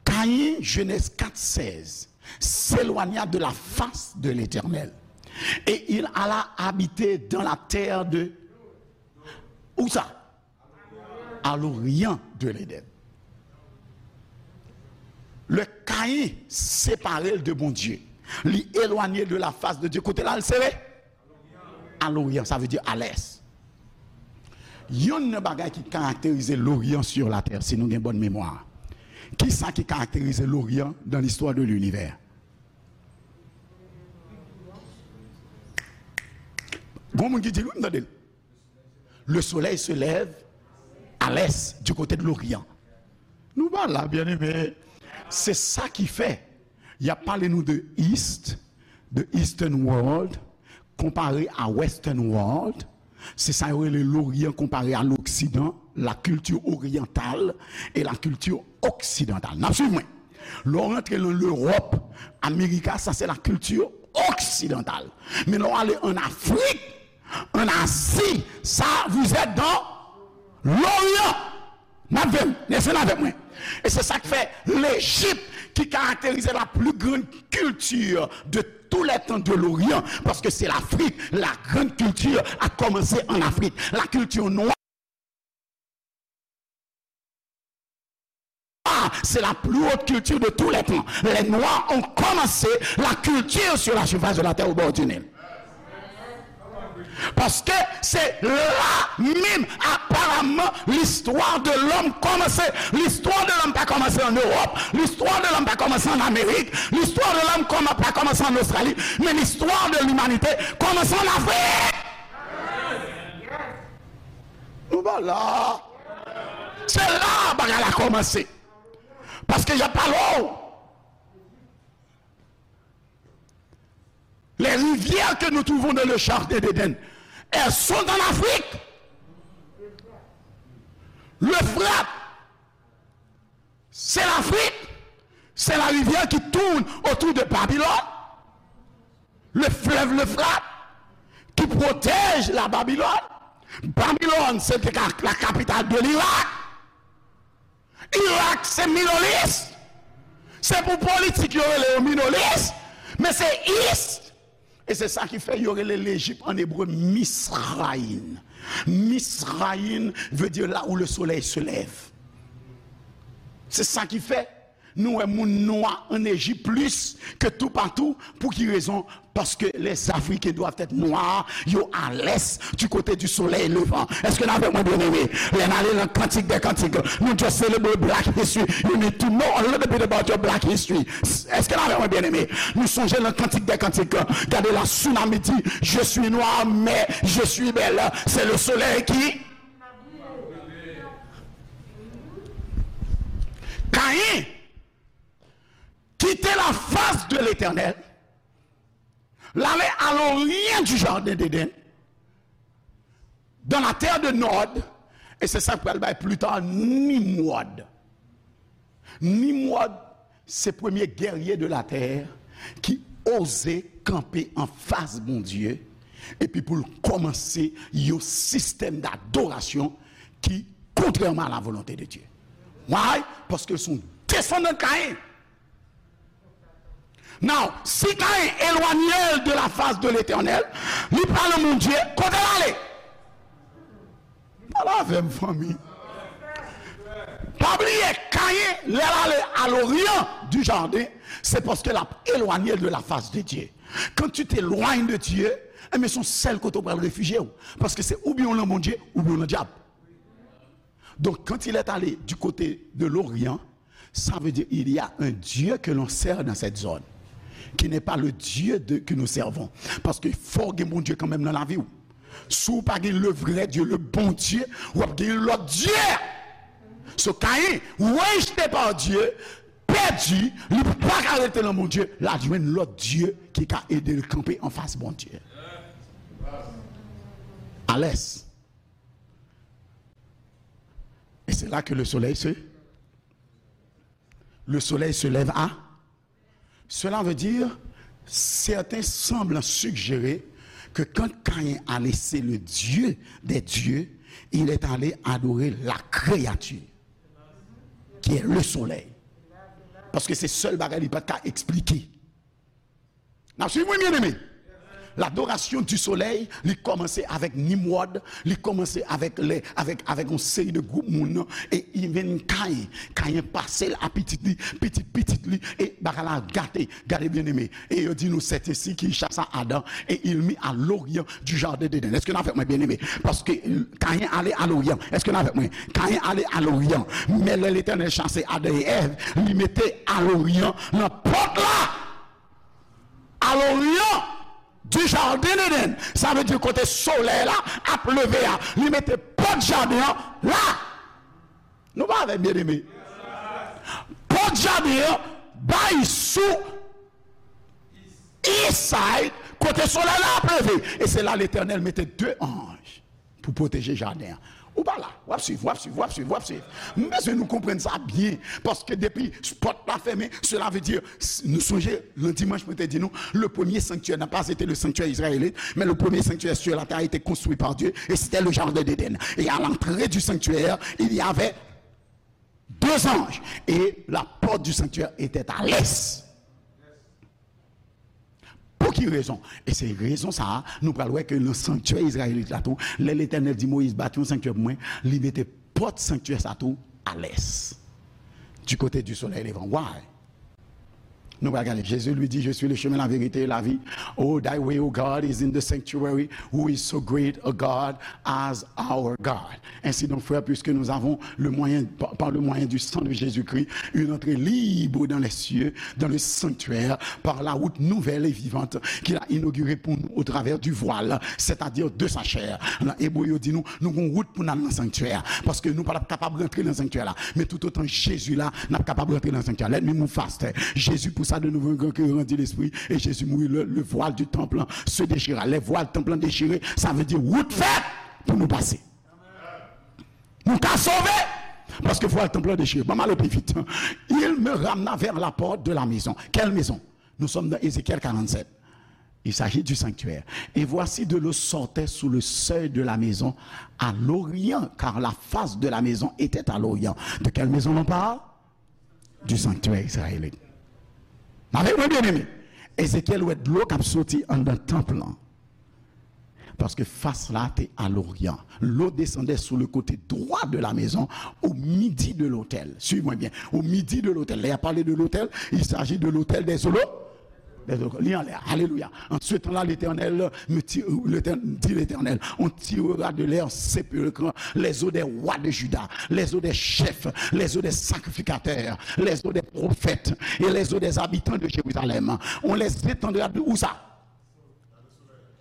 Caïn, Genèse quatre seize, s'éloigna de la face de l'Éternel. Et il alla habiter dans la terre de... Où ça? À l'orient de l'Éden. Lè Caïn separe l de Bondye, li elwanye de la face de Dieu. Kote l al sere? A loryan, sa vle di a lès. Yonn nan bagay ki karakterize loryan sur la terre, si nou gen bòn memwa, kisa ki karakterize loryan dans l'histoire de l'univers? Gon moun ki di l, wi, m tande l. Le soleil se lève à l'est, du côté de l'Orient. Nou pa la, byeneme. Se sa ki fè y ap pale nou de East, de Eastern World, konpare a Western World. Se sa yo rele Loryan konpare a l'Occident, la culture orientale et la culture occidentale. N ap swiv mwen. Lè w rantre nan Lewòp, Amerika, sa se la culture occidentale. Men lè w ale ann Afrik, ann Azi, sa, vous êtes dans l'Orient. N ap vin, rete avèk mwen. E se sa k fè Lejip qui caractérisait la plus grande culture de tous les temps de l'Orient, parce que c'est l'Afrique, la grande culture a commencé en Afrique. La culture noire, c'est la plus haute culture de tous les temps. Les Noirs ont commencé la culture sur la surface de la terre au bord du Nil. Paske se la menm, aparamman, listwa de lòm kòmanse. Listwa de lòm pa kòmanse an Ewòp, listwa de lòm pa kòmanse an Amerik, listwa de lòm kòman-, pa kòmanse an Ostrali, men listwa de limanite kòmanse an Afrik. Nou pa la. Se la bagay la kòmanse. Paske y ap pale w. Les rivières que nous trouvons dans le jardin d'Éden, elles sont en Afrique. L'Euphrate, c'est l'Afrique. C'est la rivière qui tourne autour de Babylone. Le fleuve l'Euphrate qui protège la Babylone. Babylone, c'était la, la capitale de l'Irak. Irak se Middle East. Se pou politik yo rele yo Middle East, men se East. E se sa ki fè yo rele Lejip an ebre Misraïm. Misraïm veut dire là où le soleil se lève. Se sa ki fè nou wè moun nwa an Ejip plis ke toupatou. Pou ki rezon? Parce que les Africains doivent être noirs, yo à l'est, du côté du soleil levant. Èske n avèk mwen, byeneme? Lè n ale nan Kantik dè Kantik, nou just celebrate Black History. You need to know a little bit about your Black History. Èske n avèk mwen, byeneme? Nou sonje nan Kantik dè Kantik, gade la, tsunami di, je suis noir, mais je suis belle. C'est le soleil qui Caïn quittait la face de l'Éternel, l'allait à l'orient du jardin d'Éden, dans la terre de Nod, e se sa k pral bay pli ta Nimwòd. Nimwòd, se premye gèrye de la tè ki oze kanpe anfas Bondye, epi pou l kòmanse yon sistèm dadorasyon ki kontrèman a la volonte de Dye. Why? Paske l se yon desandan Kayen. Now, si Kayen elwanye l de la fas de Letènèl, li pa nan Bondye, kote l ale? Pale avè m, fanmi. Pa bliye, Kayen, lè l ale à l'orient du jardin, se paske l ap elwanye l de la fas de Dye. Quand tu t'éloignes de Dieu, enben, se yon sèl kote w pral refijye w. Paske se oubyen w nan Bondye, oubyen w nan dyab. Donc, quand il est allé du côté de l'Orient, ça veut dire il y a un Dieu que l'on sert dans cette zone, qui n'est pas le Dieu de, que nous servons. Paske fò w gen Bondye kanmenm nan lavi w. Si w pa gen le vrai Dieu, le bon Dieu, w ap gen lòt dye. So, Kayen, rejeté par Dieu, pèdi, li pa ka rete nan Bondye, l al jwenn lòt dye ki ka ede l kanpe anfas Bondye. À l'est. Et c'est là que le soleil se, le soleil se lève à. Cela veut dire, certains semblent suggérer que quand Caïn a laissé le Dieu des dieux, il est allé adorer la créature, qui est le soleil. Paske se sèl bagay li pa t ka eksplike. N ap swiv mwen, byeneme? Ladorasyon di solèy, li kòmanse avèk Nimwòd, li kòmanse avèk lè, avèk, avèk yon seri de gwoup moun, e even Kayen, Kayen pase l a pitit li, pitit pitit li, e bagay la gate. Gade, byeneme, et il dit nous, c'est ainsi qu'il chassa Adam, et il mit à l'orient du jardin d'Éden. Èske n avèk mwen, byeneme? Paske Kayen ale a loryan. Èske n avèk mwen? Kayen ale a loryan. Men lè Letènèl chase Adan e Èv, li mete a loryan nan pòt la. À l'orient du jardin d'Éden. Sa vle di kote solèy la ap leve a. Li mete pòt jaden an la. Nou pa avè m, byeneme? Pòt jaden an bay sou east side, kote solèy la ap leve. E se la Letènèl mete de anj pou pwoteje jaden an. Ou pa la, w ap swiv, w ap swiv, w ap swiv, w ap swiv. M bezwen nou konprann sa byen, paske depi pòt la fèmen, cela veut dire, s-, nou sonje, nan dimanch, mwen te di nou, le premier sanctuaire n'a pas été le sanctuaire israélite, mais le premier sanctuaire sur la terre a été construit par Dieu, et c'était le jardin d'Éden. Et à l'entrée du sanctuaire, il y avait deux anges, et la porte du sanctuaire était à l'est. Pou ki rezon? E se rezon sa a, nou pral wè ke nan sanktyè izrayelit la tou, lè Letènèl di Moyiz, bati yon sanktyè pou mwen, li mete pòt sanktyè sa tou a l'est, du côté du soleil levant. Why? Nou pral gade. Jésus lui dit, je suis le chemin, la vérité et la vie. Oh, thy way, O God, is in the sanctuary. Who is so great a God as our God? Ainsi donc, frères, puisque nous avons le moyen, par, par le moyen du sang de Jésus-Christ, une entrée libre dans les cieux, dans le sanctuaire, par la route nouvelle et vivante qu'il a inaugurée pour nous au travers du voile, c'est-à-dire de sa chair. Nan Ebre yo di nou, nou gon wout pou n al nan sanktyè a, paske nou pa t ap kapab rantre nan sanktyè la. Men toutotan Jezi la, n ap kapab rantre nan sanktyè a. Let me move faster. Jezi poussa de nouveau un grand cri, rendit l'esprit, et Jésus mourut. Le, le voile du temple se déchira. Lè vwal tanp lan dechire, sa vle di wout fèt pou nou pase. Nou ka sove, paske vwal tanp lan dechire. Ban m ale pi vit. Il me ramena vers la porte de la maison. Quelle maison? Nous sommes dans Ézéchiel quarante-sept. Il s'agit du sanctuaire. Et voici, de l'eau sortait sous le seuil de la maison à l'orient, car la face de la maison était à l'orient. De quelle maison on parle? Du sanctuaire israélite. Avèk mwen, byeneme, Ezekyèl wè dlo k ap soti anndan tanp lan. Paske fas la te à l'orient. L'eau descendait sous le côté droit de la maison, au midi de l'autel. Suivez-moi bien. Au midi de l'autel. Là, il a parlé de l'autel. Il s'agit de l'autel des holo-, des holo-, li anlè. Alelouya. En ce temps-là, l'Éternel me ti-, l'Éternel, dit l'Éternel, on tirera de leurs sépulcres les os des rois de Juda, les os des chefs, les os des sacrificateurs, les os des prophètes et les os des habitants de Jérusalem. On les étendra de où ça?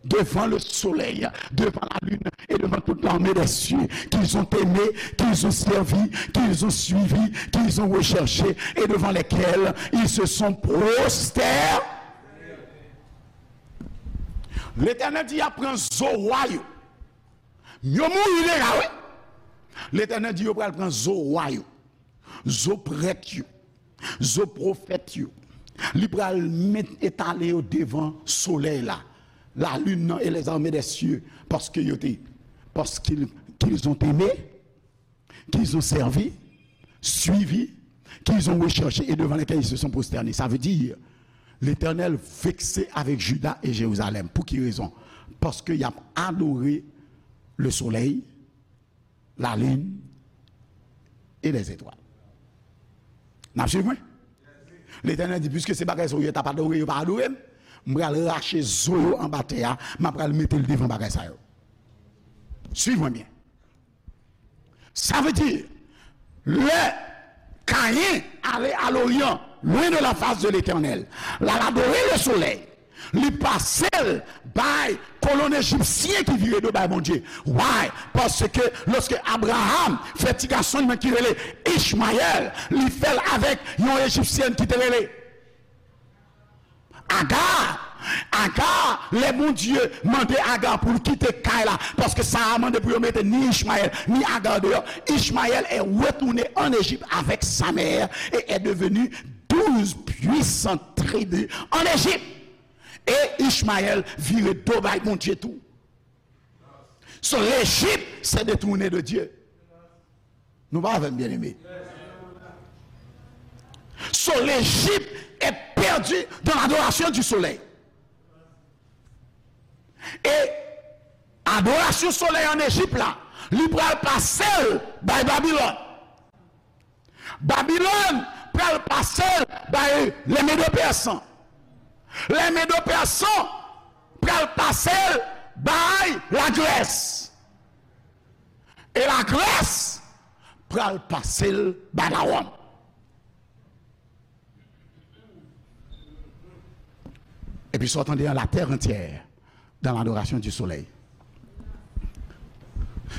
Devant le soleil, devant la lune et devant toute l'armée des cieux, qu'ils ont aimé, qu'ils ont servi, qu'ils ont suivi, qu'ils ont recherché, et devant lesquels ils se sont prosternés. Letènèl di, y ap pran zo wa yo. Yo mouri deja, wi. Letènèl di, yo pral pran zo wa yo. Zo prèt yo, zo pwofèt yo, li pral met, etale yo devan solèy la, la lune nan et les armées des cieux, paske yo te, parce qu'ils, qu'ils ont aimé, qu'ils ont servi, suivi, qu'ils ont recherché et devant lesquels ils se sont prosternés. Ça veut dire, Letènèl vekse avèk Jida e Jerizalèm. Pou ki rezon? Paske y ap adore le soleil, la lune et les étoiles. N ap swiv mwen? Letènèl di, piske se bagay sa yo t ap adore, yo pa adore m, m pral rache zo yo anba tè a, m ap pral mete l devan bagay sa yo. Swiv mwen byen. Sa vle di, lè Kayen ale a loryan, lwen de la fas de Letènèl, l al adore le solèy, li pase l bay kolonn ejipsyen ki vire do bay Bondye. Why? Paske lòske Abraram fè ti gason li menm ki rele Ichmayèl, li fè l avèk yon ejipsyèn ki te rele Agar. Agar, lè Bondye mande Agar pou l kite kay la, paske Sara mande pou yo mete ni Ichmayèl, ni Agar deyò, Ichmayèl est retourné en Égypte avec sa mère et est devenu douze puissantes tribus en Égypte. E Ichmayèl vire do bay Bondye tou. So, l'Égypte s'est détournée de Dieu. Nou pa avè m, byeneme. So, l'Égypte est perdue dans l'adoration du soleil. E adorasyon solèy ann Ejip la, li pral pase l bay Babilòn. Babilòn pral pase l bay lè Medo Pèsan. Lè Medo Pèsan pral pase l bay Lagrès. E Lagrès pral pase l bay Lawòm. Epi sa w tande an, la terre entière dans l'adoration du soleil.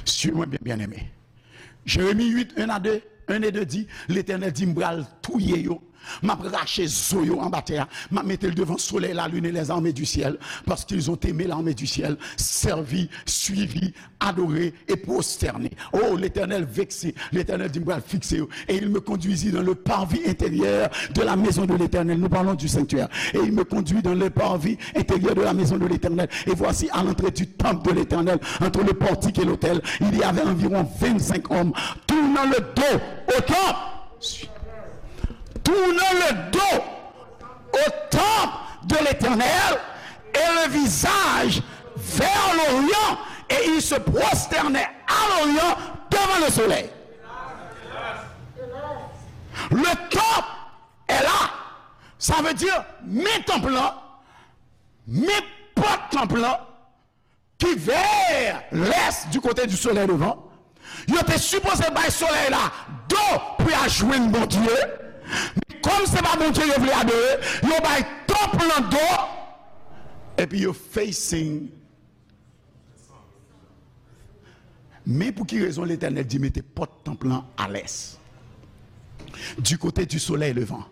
Suiv mwen byen, byeneme. Jeremi uit, un à deux, un et deux di, Letènèl di, m pral touye yo, m ap rache zo yo anba tè a, m ap mete l devan solèy, la lune et les armées du ciel, parce qu'ils ont aimé l'armée du ciel, servi, suivi, adoré et prosterné. Oh, Letènèl vekse. Letènèl di, m pral fikse yo. Et il me conduisit dans le parvis intérieur de la maison de l'Éternel. Nous parlons du sanctuaire. Et il me conduit dans le parvis intérieur de la maison de l'Éternel. Et voici, à l'entrée du temple de l'Éternel, entre le portique et l'autel, il y avait environ vingt-cinq hommes tournant le dos au temple. Tournant le dos au temple de l'Éternel et le visage vers l'Orient, et il se prosternait à l'Orient devant le soleil. Le temple est là. Sa vle di, men tanp lan, men pòt tanp lan, ki vè lès, du côté du soleil levant. Yo te sipoze bay solèy la do pou y al jwenn Bondye. Men kòm se pa Bondye yo vle adore, yo bay tanp lan do. Epi yo facing. Men pou ki rezon Letènèl di mete pòt tanp lan a lès, du côté du soleil levant.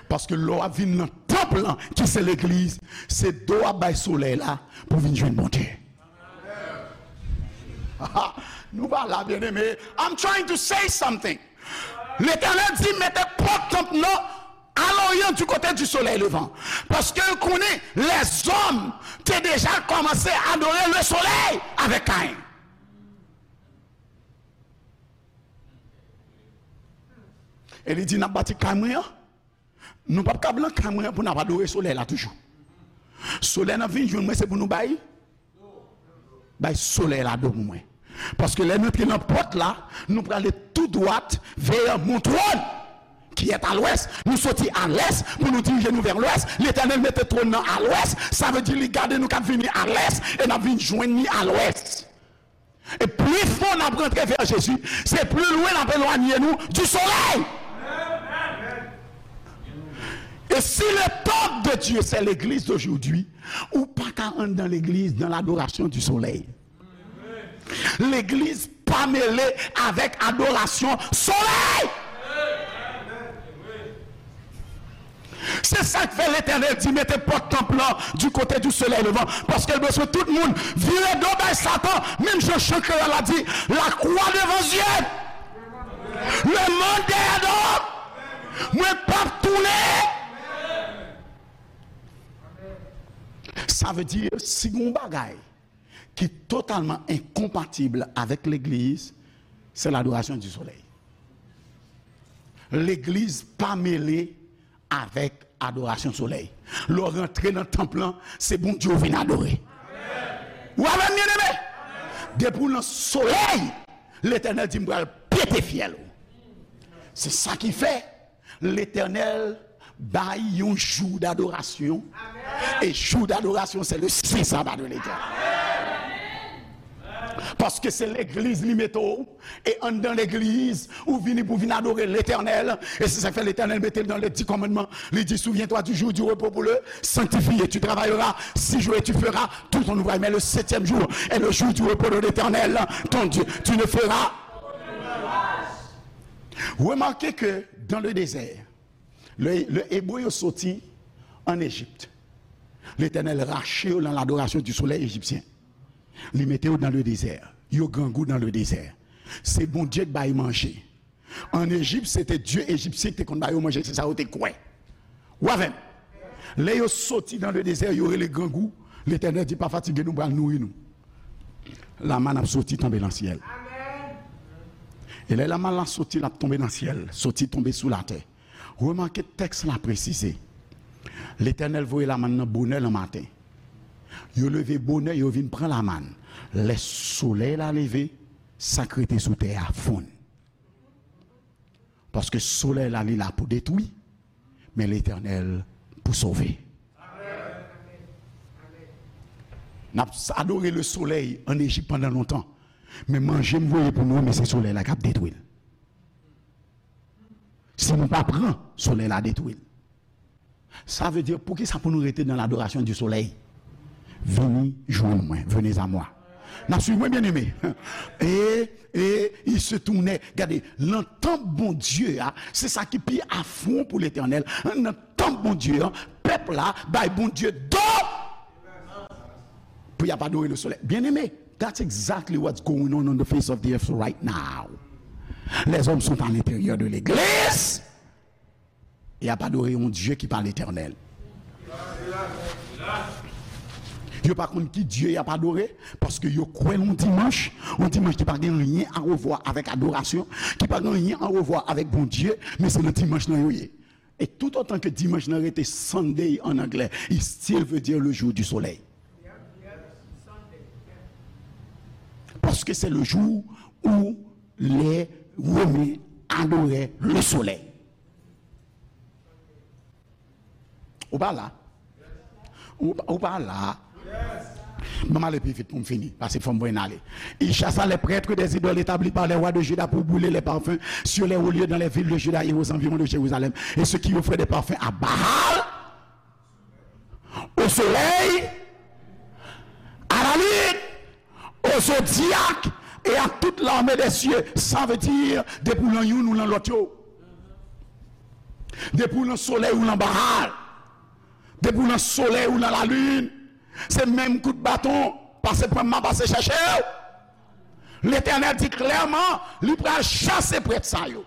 Paske lè w ap vin nan tanp lan, ki se legliz, se do w ap bay solèy la pou vin jwenn Bondye. Nou pa la, byeneme. I'm trying to say something. Letènèl di, mete pòt tanp nan a l'orient, du côté du soleil levant. Paske l konnen lèzòm te deja kòmanse adore le soleil avèk Kayen. E li di, n ap bati kay mwen an. Nou p ap kab lan kay mwen an pou n ap adore solèy la toujou. Solèy n ap vin jwenn mwen, se pou nou bay, bay solèy la do pou mwen. Paske lè n antre nan pòt la, nou prale tou dwat vè mon trône qui est à l'ouest. Nou soti a lès pou nou dirije nou vè lwès. Letènèl mete twòn nan a lwès. Sa vle di li gade nou k ap vini a lès e n ap vin jwenn li a lwès. E pli fon n ap rantre vè Jezi, se pli lwen n ap elwanye nou du soleil. Et si le temple de Dieu, c'est l'église d'aujourd'hui, ou pa ka anndan legliz dans l'adoration du soleil. Legliz pa mele avèk adorasyon solèy. Se sa k fè Letènèl di, mete pòt tanp lan du côté du soleil levant, paske l bezwen tout moun vire do bay Satan, menm jan chan kreyòl la di, la croix devant yeux, le monde derrière dos, mwen p ap tounen. Sa vle di, si gen yon bagay ki totalman enkonpatib avèk legliz, se ladorasyon di solèy. Legliz pa mele avèk adorasyon solèy. Lè w rantre nan tanp lan, se Bondye w vin adore. Ou avè m, byeneme? Depi w nan solèy, Letènèl di, m pral pete fyèl ou. Se sa ki fè Letènèl bay yon jou dadorasyon. E jou dadorasyon, se le sen saba de Letènèl. Paske se legliz li mete w, e anndan legliz, ou vini pou vin adore Letènèl. E se sa k fè Letènèl mete l nan le di kòmandman. Li di, souviens-toi du jour du repos pour le sanctifier. Tu travailleras six jours et tu feras tout ton ouvrage. Mais le septième jour est le jour du repos de l'Éternel, ton Dieu. Tu ne feras. Remarquez que dans le désert, le, le Hébreu yo soti an Ejip. Letènèl rache yo nan ladorasyon di solèy ejipsyen. Li mete yo nan le dezè. Yo grangou nan le dezè. Se Bondye k bay manje. An Ejip, se te dye ejipsyen ki te konn ba yo manje, se sa yo te kwè. Ou avè m? Lè yo soti nan le dezè, yo rele grangou. Letènèl di, pa fatige nou, m pral nouri nou. Lamann ap soti tonbe nan syèl. E lè lamann la soti, l ap tonbe nan syèl, soti tonbe sou latè. Remake tèks la presize. Letènèl voye lamann nan bonè nan maten. Yo leve bonè, yo vin pran lamann. Lè solèy la leve, sa k rete sou tè a fonn. Paske solèy la, li la pou detwi, men Letènèl pou sove. N ap adore le solèy an Ejip pandan lontan, men manje m voye pou nou, men se solèy la k ap detwi l. Si nou pa pran, solèy la detwi l. Sa vle di, poukisa pou nou rete nan ladorasyon di solèy? Vini jwenn mwen, venez à moi. N ap swiv mwen, byeneme. E, e, il se tournait. Gade, nan tanp Bondye a, se sa ki pi afwon pou Letènèl. Nan tanp Bondye a, pèp la bay Bondye do pou y ap adore le solèy. Byeneme, that's exactly what's going on on the face of the earth right now. Les hommes sont à l'intérieur de l'église. Y ap adore yon Dye ki pa Letènèl. Yo pa konn ki Dye y ap adore, paske yo kwè nan yon dimanch, yon dimanch ki pa gen anyen a wevwa avèk adorasyon, ki pa gen anyen a wevwa avèk Bondye, men se nan dimanch lan yo ye. E tout otan ke dimanch lan rete Sunday an anglè, it still veut dire le jour du soleil. Parce que c'est le jour où les Romains adoraient le soleil. Ou pa la? Ou, ou pa la? Ban m ale pi vit pou m fini, paske fò m voye n ale. Il chassa les prêtres des idoles établies par les rois de Juda pour brûler les parfums sur les hauts lieux dans les villes de Juda et aux environs de Jérusalem, et ceux qui offraient des parfums à Baal, au soleil, à la lune, au zodiaque et à toute l'armée des cieux. Sa vle di, depi w lan youn ou lan lòt yo. Depi w lan solèy ou lan Baal. Depi w lan solèy ou lan lalin. Se menm kout baton, pase pran m, m a pase chèche w. Letènèl di klèman, li pral chase prèt sa yo.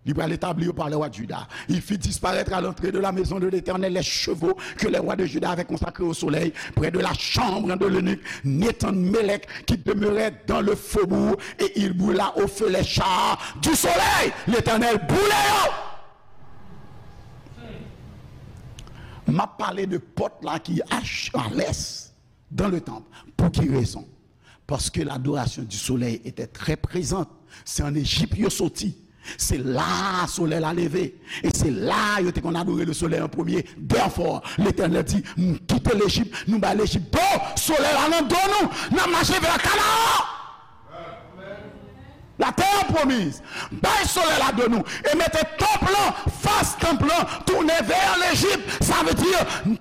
Li pral etabli yo par les rois de Juda. Il fit disparaître à l'entrée de la maison de l'Éternel les chevaux que les rois de Juda avaient consacrés au soleil, près de la chambre de l'eunuque Nethan-Mélec, qui demeurait dans le faubourg, et il brûla au feu les chars du soleil. Letènèl boule yo. M ap pale de pòt la ki a, a lès, dans le temple. Pou ki rezon? Parce que l'adoration du soleil était très présente. Se ann Ejip yo soti. Se la solèy la leve. E se la yo te konn adore le soleil en premier. Therefore, Letènèl di, m kite Lejip, nou bay Lejip do, solèy la nan do nou, n ap mache vè Kanaan. La terre promise. Bay solèy la do nou. E mete tanp lan, fas tanp lan, tounen vè Lejip. Sa vle di,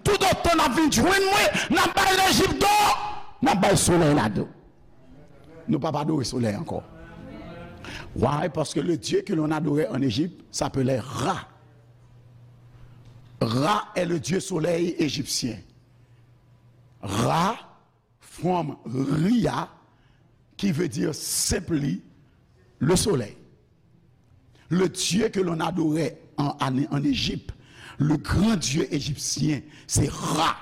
tout otan n ap vin jwenn mwen, n ap bay Lejip do. N ap bay solèy la do. Nou p ap adore solèy ankò. Why? Parce que le Dieu que l'on adorait en Égypte s'appelait Ra. Ra est le dieu soleil égyptien. Ra from Ria, qui veut dire simply le soleil. Le Dieu que l'on adorait en, en, en Égypte, le grand Dieu égyptien, c'est Ra,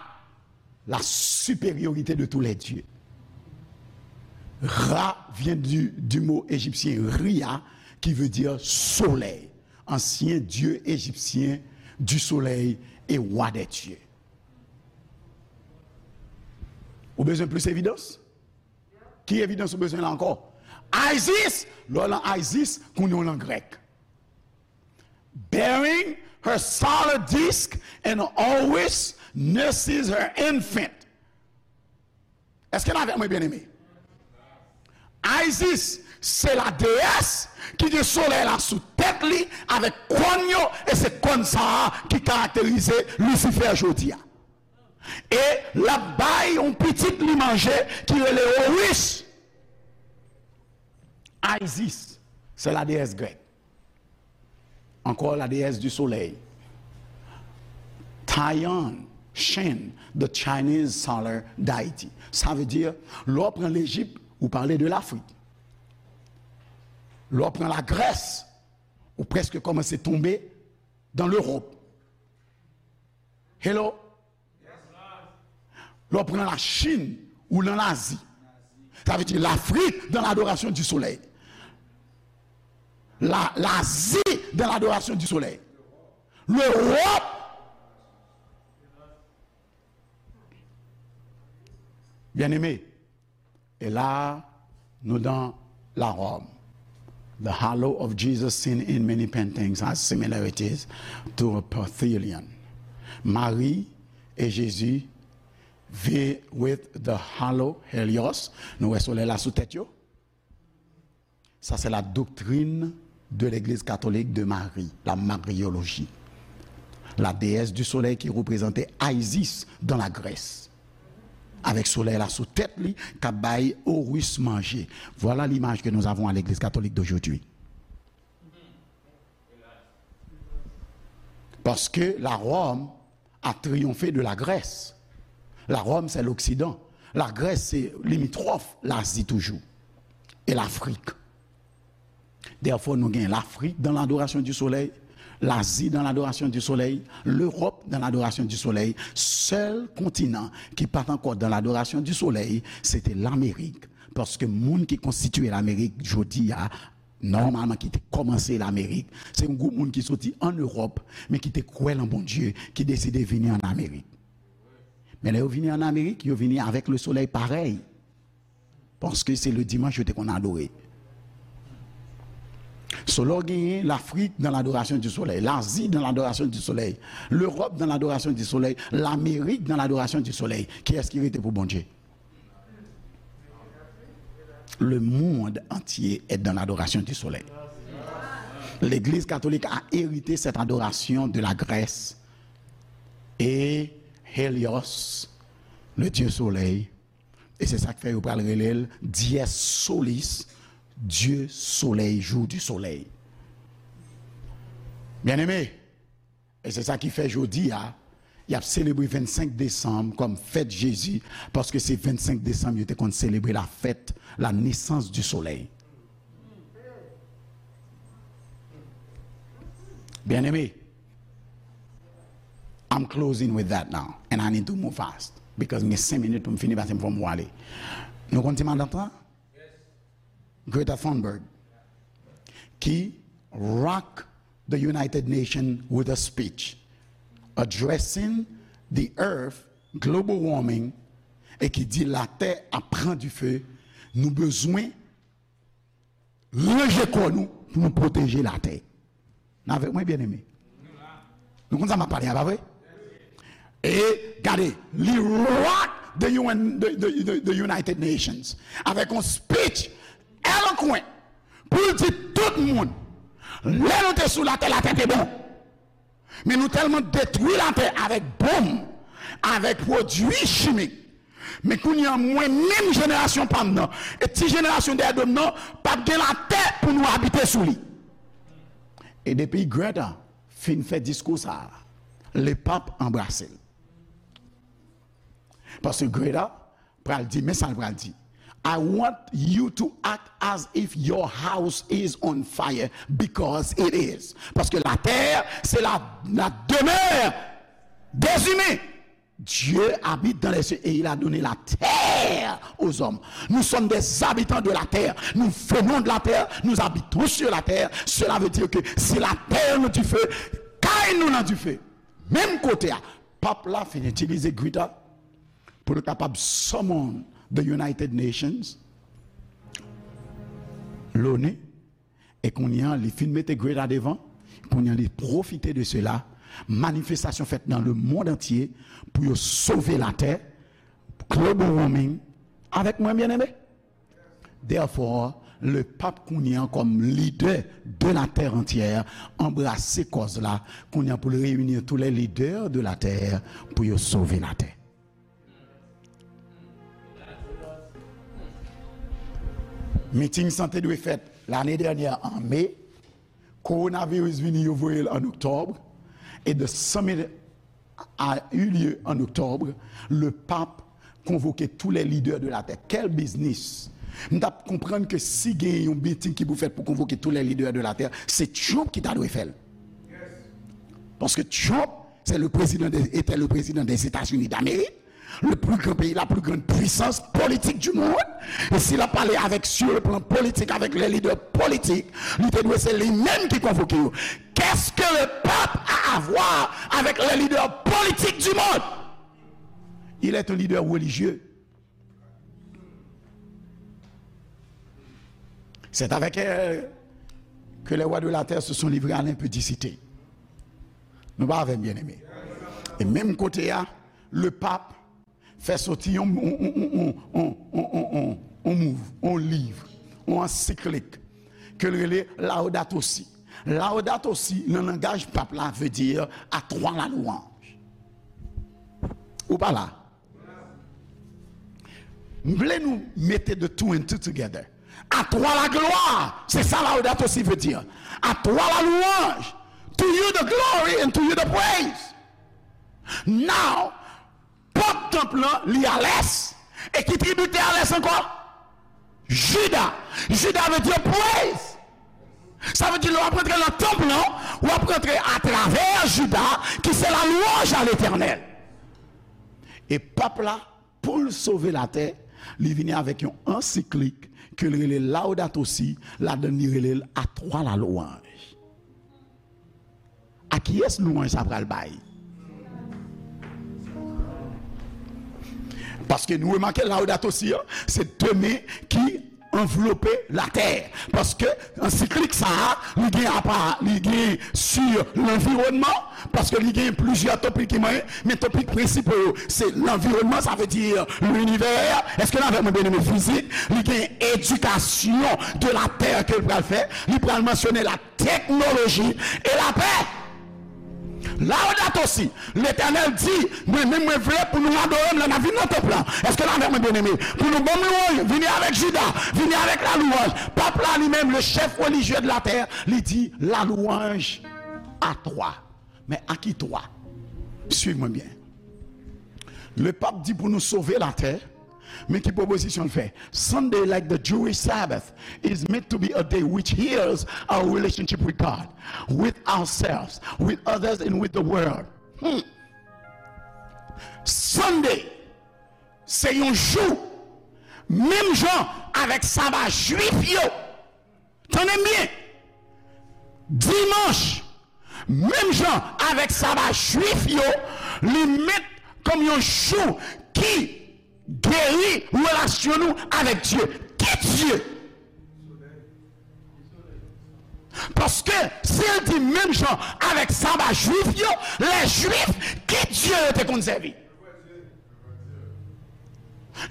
la supériorité de tous les dieux. Ra vient du, du mot égyptien Ria, qui veut dire soleil, ancien dieu égyptien du soleil et roi des dieux. Ou bezwen plis evidans? Ki evidans ou bezwen la ankò? Isis, lè w lan Isis, kounye w lan grèk. Bearing her solar disk and always nurses her infant. Èske n avèk mwen, byeneme? Isis, se la déesse ki gen solèy la sou tèt li avèk kòn yo, e se kòn sa a ki karakterize Lisifè jodi a. E l ap bay yon pitit li manje ki rele Horus. Isis, se la déesse grèk. Encore la déesse du soleil. Tian Shen, the Chinese solar deity. Sa vle di, lè w pran Lejip, ou pale de Lafrik. Lè w pran Lagrès, ou prèske kòmanse tonbe dans l'Europe. Hello? Lè w pran Lachin, ou nan Lazi. Sa vle di Lafrik dans l'adoration du soleil. La, Lazi dans l'adoration du soleil. Lewòp. Byeneme, e la, nou nan Laròm. The halo of Jesus seen in many paintings has similarities to a Parthian. Mari e Jezi vi-, with the halo, Helios. Nou wè solèy la sou tèt yo. Ça, c'est la doctrine de l'Église catholique de Marie, la mariologie. La déesse du soleil qui représentait Isis dans la Grèce. Avec solèy la sou tèt li, k ap bay Horus manje. Voilà l'image que nous avons à l'Église catholique d'aujourd'hui. Parce que la Rome a triomphe de la Grèce. La Rome, c'est l'Occident. La Grèce, c'est limitrophe, l'Asie toujours. Et l'Afrique. Therefore, nou gen Lafrik dans l'adoration du soleil, Lazi dan ladorasyon di solèy, Lewòp dan ladorasyon di solèy. Sèl kontinan ki pa t ankò dan ladorasyon di solèy, se te Lamerik. Paske moun ki konstitye Lamerik jodi a, nòmalman ki te kòmanse Lamerik, se yon gwoup moun ki soti ann Ewòp, men ki te kwè nan Bondye, ki deside vini ann Amerik. Men lè yo vini ann Amerik, yo vini avèk le solèy parèy. Paske se le dimanch yo te konn adore. So, lè w genyen Lafrik dan ladorasyon di solèy, Lazi dan ladorasyon di solèy, Lewòp dan ladorasyon di solèy, Lamerik dan ladorasyon di solèy, kiyès ki rete pou Bondye? Le monde entier est dans l'adoration du soleil. L'Église catholique a hérité cette adoration de la Grèce et Hélios, le dieu soleil. E se sa k fè yo pral rele l Dies Solis, Dye Solèy, Jou di Solèy. Byeneme, e se sa ki fè jodi a, y ap selebre vennsenk desanm kòm fèt Jezi, paske se vennsenk desanm yo te konn selebre la fête, la naissance du soleil. Byeneme, I'm closing with that now, and I need to move fast, because m gen senk minit pou m fini, paske m fò m ale. Nou konn ti matant lan? Greta Thunberg, ki rock the United Nations with a speech addressing the earth, global warming, e ki di latè ap pran dife, nou bezwen ranje kò nou pou nou pwoteje latè. N avèk mwen, byeneme? Nou konn sa m ap pale a, pa vre? E gade, li rock the U N, the, the, the, the United Nations, avèk yon speech eloquent pou l di tout moun, lè nou te sou latè, latè te bon. Men nou tèlman detwi latè avèk bonm, avèk pwodui chimik. Men kounye a, mwen menm, jenerasyon pa m nan, e ti jenerasyon dèyè do m nan, p ap gen latè pou nou abite sou li. E depi Greta fin fè diskou sa a, lepap anbrase l. Paske Greta pral di, men sa l pral di: "I want you to act as if your house is on fire, because it is." Paske latè, se la, la demeure des humains. Dieu habite dans les cieux et il a donné la terre aux hommes. Nous sommes des habitants de la terre. Nous venons de la terre, nous habitons sur la terre. Cela veut dire que si latè nan dife, kay nou nan dife. Menm kote a, pap la fin itilize Greta pou l kapab summon the United Nations, l'ONU, e kounye a, li fin mete Greta devan, kounye a, li pwofite de sela, manifestasyon fèt nan le monde entier pou yo sove latè, global warming, avèk mwen, byeneme? Therefore, le pap kounye a kòm lidè de la terre entière, anbrase kòz la, kounye a pou l reyini tous les leaders de la terre pou yo sove latè. Miting sa te dwe fèt lane dènyè an me, kowonaviris vini, yo voye l an oktòb, e the summit a eu lieu en octobre, le pape convoquait tous les leaders de la terre. Quel business! M t ap konprann ke si gen yon miting ki pou fèt pou konvoke tous les leaders de la terre, se Trump ki ta dwe fè l. Paske Trump, c'est le président des, était le président des États-Unis d'Amérique, le plus grand pays, la plus grande puissance politique du monde. E si l ap pale avèk, sur le plan politique, avec les leaders politiques, li te dwe se li menm ki konvoke yo. Qu'est-ce que le pape a à voir avec les leaders politiques du monde? Il est un leader religieux. C'est avec elle que les rois de la terre se sont livrés à l'impudicité. Nou pa avè m, byeneme? E menm kote a, le pap fè soti yon, yon, yon mouv, yon liv, yon ansiklik, ke l rele Laudato Si. Laudato Si, nan langaj pap la, vle di à toi la louange. Ou pa la? M vle nou mete the two and two together. À toi la gloire, se sa Laudato Si vle di. À toi la louange, to you the glory and to you the praise. Now, pòt tanp lan, li a lès. E ki tribi te a lès ankò? Jida. Jida vle di praise. Sa vle di, lè w ap rantre nan tanp lan, w ap rantre atravè Jida, ki se la louange à l'Éternel. E pap la, pou l sove latè, li vini avèk yon ansiklik ke l rele Laudato Si, ladan l li rele l A Twa la louanj. A kiyès louanj sa pral bay? Paske nou remake Laudato Si an, se de men ki anvlope latè. Paske ansiklik sa a, li gen apa, li gen sur lanviwònman, paske li gen plizyè topik ki manyen, men topik prensipal yo, se lanviwònman, sa vle di linivè. Èske n avè mwen, byeneme? Fizik, li gen éducation de la terre ke l pral fè, li pral mansyone la teknoloji e lapè. Laudato Si, Letènèl di, mwen menm mwen vle pou nou adore m lè n ap vin nan tanp lan. Èske n avè mwen, byeneme? Pou nou ban m louanj, vini avèk Jida, vini avèk la louanj. Pap la li menm, le chef religieux de la terre, li di la louange à toi. Men a ki twa? Swiv mwen byen. Le pap di pou nou sove latè, men ki pwopozisyon l fè? Sunday, like the Jewish Sabbath, is meant to be a day which heals our relationship with God, with ourselves, with others, and with the world. Hmm. Sunday, se yon jou, menm jan avèk saba jwif yo. Tande m byen. Dimanch, menm jan avèk saba jwif yo, li met kòm yon jou ki geri relasyon nou avèk Dye. Ki Dye? Paske si l di menm jan avèk saba jwif yo, lè jwif, ki Dye yo te konn sèvi?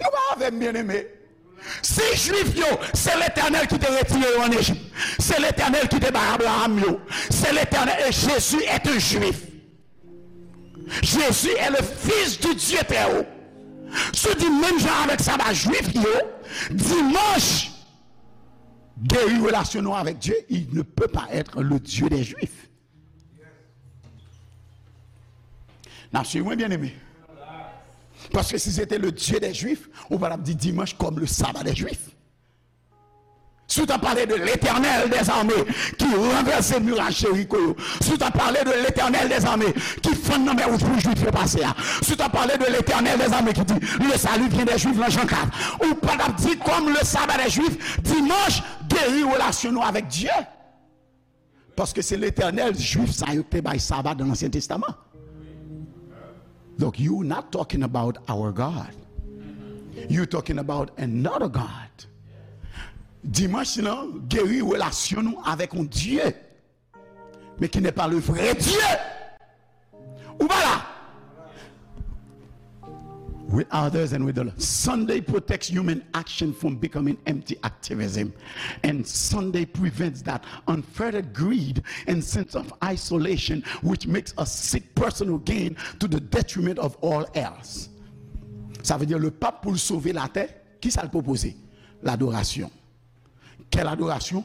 Nou pa avè m, byeneme? Si jwif yo, se Letènèl ki te retire yo ann Ejip, se Letènèl ki te bay Abraham yo, se Letènèl, et Jésus est un juif. Jésus est le fils du Dieu très haut. Si w di menm jan avèk saba jwif yo, dimanch geri relasyon nou avèk Dye, il ne peut pas être le Dieu des Juifs. N ap swiv mwen, byeneme? Paske si se te le Dieu des Juifs, ou pa t ap di dimanch kòm le sabbat des Juifs. Si w t ap pale de Letènèl dèzame ki ranvèse miray Jeriko yo, si w t ap pale de Letènèl dèzame ki fann nan mè wouj pou Jwif yo pase a, si w t ap pale de Letènèl dèzame ki di le salut vient des Juifs nan Jan kat, ou pa t ap di kòm le sabbat des Juifs, dimanch geri relasyon nou avèk Dye. Paske se Letènèl jwif sa yo ki te bay saba nan Ansyen Testaman. Donk, you not talking about our God. You talking about another God. Dimanch lan geri relasyon nou avèk yon Dye, men ki n'est pas le vrai Dieu. Ou pa la? With others and with the Lord. Sunday protects human action from becoming empty activism. And Sunday prevents that unfettered greed and sense of isolation which makes us seek personal gain to the detriment of all else. Sa vle di, le pap pou l sove latè, ki sa l pwopoze? Ladorasyon. Quelle adoration?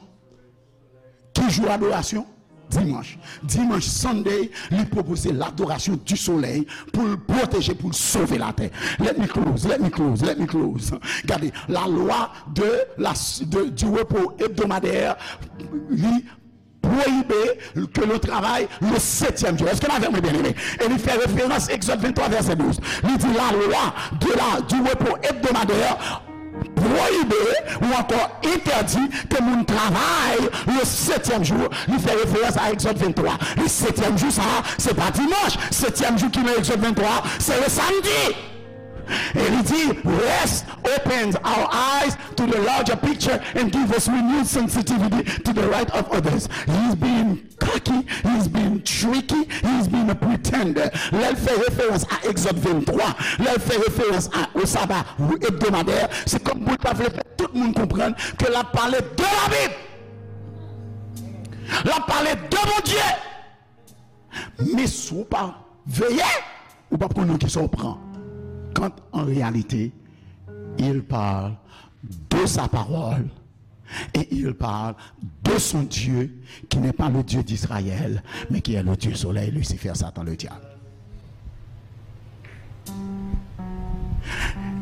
Ki jou adorasyon? Dimanch. Dimanch, Sunday, li pwopoze ladorasyon di solèy pou l pwoteje, pou l sove latè. Let me close, let me close, let me close. Gade, la loi de la, de, du repos hebdomadaire, li pwoyibe ke nou travay le septième jour. Èske n avè mwen, byeneme? E li fè referans Egzòd venntwa, vèsè douz. Li di, la loi de la, du repos hebdomadaire pwoyibe ou ankò entèdi ke moun travay le septième jour. Li fè referans a Egzòd venntwa. Le septième jour sa a, se pa dimanch. Septième jour ki nan Egzòd venntwa, se le samdi. E li di, rest opens our eyes to the larger picture and give us renewed sensitivity to the right of others. He's being cocky, he's being tricky, he's being a pretender. Lè l fè referans a Egzòd venntwa, lè l fè referans a, o saba ebdomadè, se kòm pou l ta vle fè tout moun konprann ke l ap pale de Labib. L ap pale de Bondye. Men si w pa veye, ou p ap konn nan kisa w pran. Quand en réalité, il parle de sa parole et il parle de son Dieu qui n'est pas le Dieu d'Israël, mais qui est le Dieu soleil, Lucifer, Satan, le diable.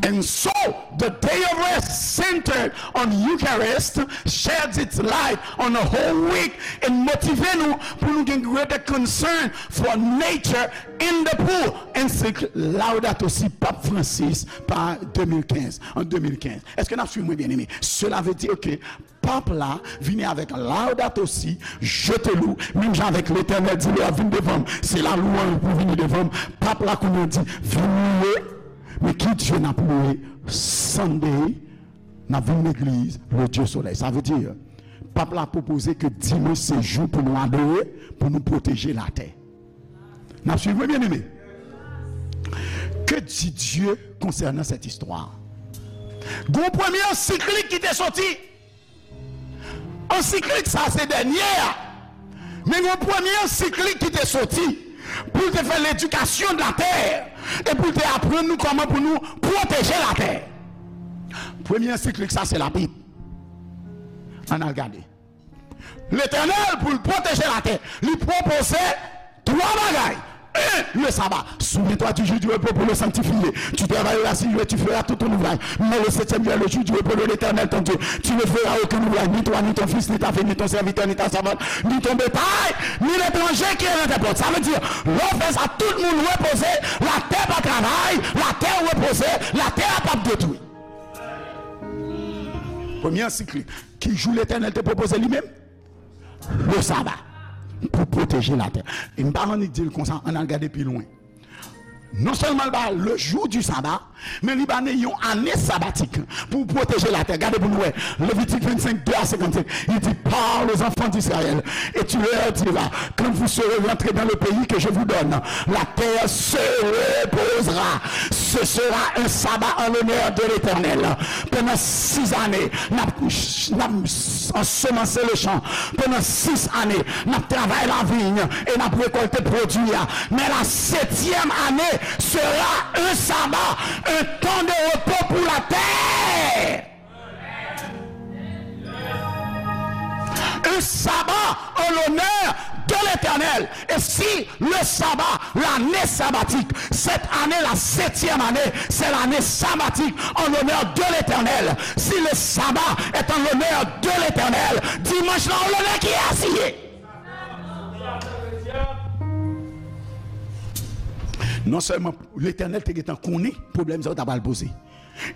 And so, the day of rest centered on Eucharist sheds its light on the whole week and motive nou pou nou gen greater concern for nature and the poor. Encyclique Laudato Si Pap Francis pa de mil kenz, an de mil kenz. Èske n ap swiv mwen, byeneme? Cela veut dire que Pap la vini avèk Laudato Si, je te loue, menm jan avèk Letènèl di lè w ap vin devan m, se lalouanj pou vini devan m. Pap la kounye a di, vin louwe, men ki Dye n ap louwe? Sunday, n ap vin legliz, le Dieu Soleil. Sa vle di, Pap la pwopoze ke dimanch se jou pou nou adore, pou nou pwoteje latè. N ap swiv mwen, byeneme? Que dit Dieu concernant cette histoire? Gon premye ansiklik ki te soti. Ansiklik sa se dènye a. Men yon premye ansiklik ki te soti pou l te fè ledikasyon de la tè e pou l te aprann nou kòman pou nou pwoteje latè. Premye ansiklik sa se Labib. Ann al gade. Letènèl, pou l pwoteje latè, li pwopoze twa bagay. Un, le sabbat. Souviens-toi du jour du repos pour le sanctifier. Tu travailleras six jours et tu feras tout ton ouvrage. Mais le septième jour est le jour du repos de l'Éternel ton Dieu. Tu ne feras aucun ouvrage, ni toi, ni ton fils, ni ta fille, ni ton serviteur, ni ta servante, ni ton bétail, ni l'étranger qui est dans tes portes. Sa vle di, lè w fè sa, tout moun repoze, latè pa travay, latè repoze, latè a p ap detwi. Premye ansiklik. Ki jou Letènèl te pwopoze li menm? Le sabbat, pou pwoteje latè. E m pa annik di l konsa, ann al gade pi lwen. Non sèlman l ba le jour du sabbat, men li ba nou yon ane sabatik pou pwoteje latè. Gade pou nou wè. Levitik vennsenk, de a senkannsenk. Il dit, parle aux enfants d'Israël et tu leur diras, quand vous serez rentrés dans le pays que je vous donne, la terre se reposera. Ce sera un sabbat en l'honneur de l'Éternel. Pandan sis ane, n ap, n ap ansemanse le chan. Pandan sis ane, n ap travay laviy e n ap rekòlte pwodui a. Men la setyèm ane sera un sabbat, un temps de repos pour la terre. Un sabbat en l'honneur de l'Éternel. Et si le sabbat, l'année sabbatique, cette année, la septième année, c'est l'année sabbatique en l'honneur de l'Éternel. Si le sabbat est en l'honneur de l'Éternel, dimanch la, an lonè kiyès li ye? Non sèlman Letènèl te gentan konnen pwoblèm sa yo ta pral poze.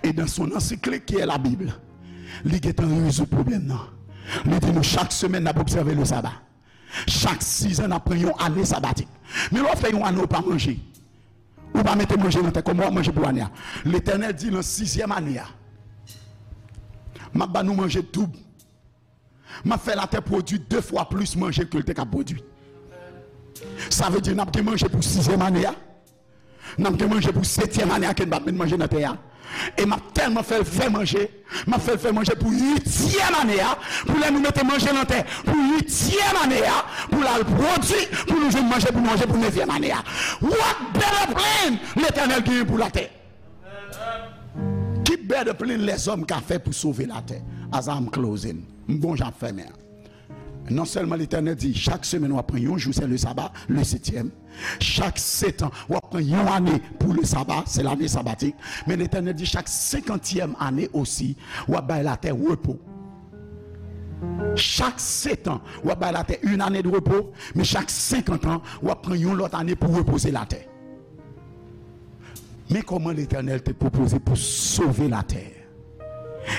E dans son encyclique qui est la Bible, li gentan rezoud pwoblèm nan. Li di nou chak semèn n ap obsève le sabbat. Chak sizan n ap pran yon ane sabatik. Men lè w fè yon ane w pa manje, ou pa mete manje nan tè, kòman w ap manje pou ane a? Letènèl di nan sizyèm ane a, m ap ba nou manje doub. M ap fè latè pwodui de fwa plis manje ke l te ka pwodui. Sa vle di n ap gen manje pou sizyèm ane a. N ap gen manje pou setyèm ane a ke n p ap met manje nan tè a. E m ap tèlman fè l fè manje, m ap fè l fè manje pou uityèm ane a, pou lè nou mete manje nan tè pou uityèm ane a, pou l al pwodui, pou nou jwenn manje pou nou manje pou nevyèm ane a. What better plan Letènèl genyen pou latè? Ki better plan lèzòm ka fè pou sove latè? As I'm closing, m gon jan ap fèmen an. Non sèlman Letènèl di, chak semèn w ap pran yon jou, se le sabbat, le septième. Chak setan, w ap pran yon ane pou le sabbat, se lane sabatik. Men Letènèl di, chak senkantyèm ane osi, w ap bay latè repo. Chak setan, w ap bay latè une année de repos, men chak senkant an, w ap pran yon lòt ane pou repoze latè. Men kòman Letènèl te pwopoze pou sove latè.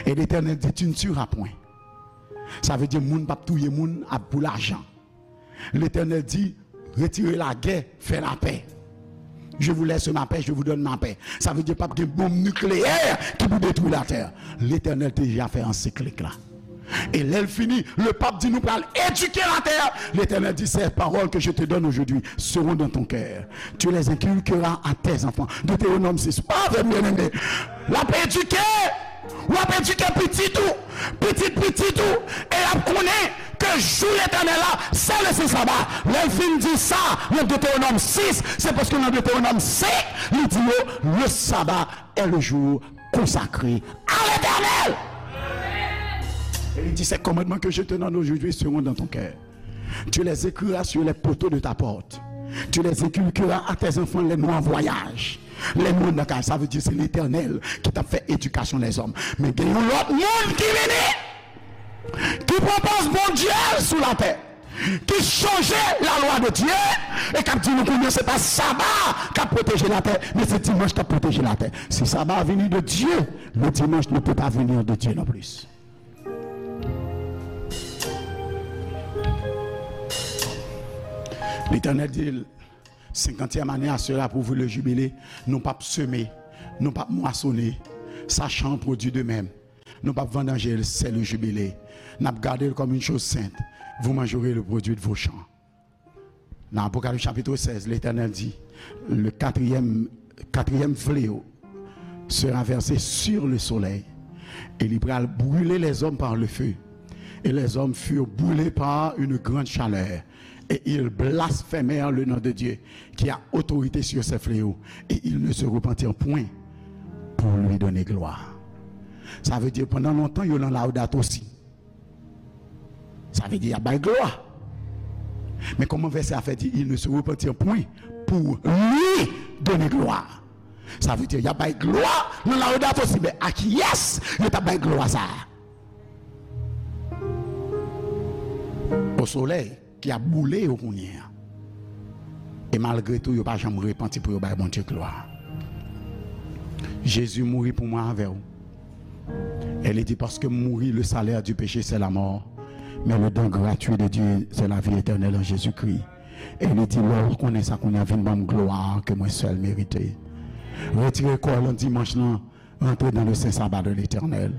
E Letènèl di, tu ne tueras point. Sa vle di moun p ap touye moun ap pou lajan. Letènèl di, retire lagè, fè lapè. Je vous laisse ma paix, je vous donne ma paix. Sa vle di p ap gen bonm nikleyè ki pou detwi latè. Letènèl te deja fè ansiklik la. E lè l fini, le pap di nou pral edike latè. Letènèl di, ces paroles que je te donne aujourd'hui seront dans ton cœur. Tu les inculqueras à tes enfants. Deutéronome sis. Pa vre, byeneme. L ap edike. W ap edike pitit ou, pitit pitit ou, e y ap konnen ke jou Letènèl la, se le sen saba. Lè l fin di sa, nan Deutéronome sis, se paske nan Deutéronome senk, li di yo, le sabbat est le jour consacré à l'Éternel. Et il dit, ces commandements que je te donne aujourd'hui seront dans ton cœur. Tu les écriras sur les poteaux de ta porte. Tu les inculqueras à tes enfants, les noms en voyage. Lè nou anndan kay, sa vle di se Letènèl ki t ap fè edikasyon lèzòm. Men gen yon lòt moun ki vini, ki pran pòz Bondye sou latè, ki chanje lalwa de Dye, e k ap di nou kounye a se pa saba k ap pwoteje latè, men se dimanch k ap pwoteje latè. Si saba vini de Dye, le dimanche ne peut pas venir de Dieu non plus. Letènèl di l, senkantyèm ane a sera pour vous le jubilé. Nou p ap seme, nou p ap mwasone. Sa chan pwodui de menm. Nou p ap vandanje l, c'est le jubilé. N ap gade l kòm une chose sainte. Vous mangerez le produit de vos champs. Nan Apocalypse chapitre seize, Letènèl di, le quatrième, quatrième fléau sera versé sur le soleil. E li pral brile lèzòm pa le feu. Et les hommes furent brûlés par une grande chaleur. Et ils blasphémèrent le nom de Dieu, qui a autorité sur ces fléaux. Et ils ne se repentirent point pour lui donner gloire. Sa vle di, pandan lontan, yo nan Laudato si. Sa vle di y ap bay glwa. Men kòman vèsè a fè di, ils ne se repentirent point pour lui donner gloire? Sa vle di y ap bay glwa nan Laudato si, men a kiyès yo t ap bay glwa sa a? Au soleil ki ap boule yo kounye a. E malgre tou, yo pa janm repanti pou yo bay Bondye glwa. Jezi mouri pou mwen avè w. E li di, paske mouri, le salaire du péché, c'est la mort. Mais le don gratuit de Dieu, c'est la vie éternelle en Jésus-Christ. E li di, lè w konnen sa kounye a, vin ban m glwa ke mwen sèl merite. Retire kò w nan dimanch lan, rantre dans le saint sabbat de l'Éternel.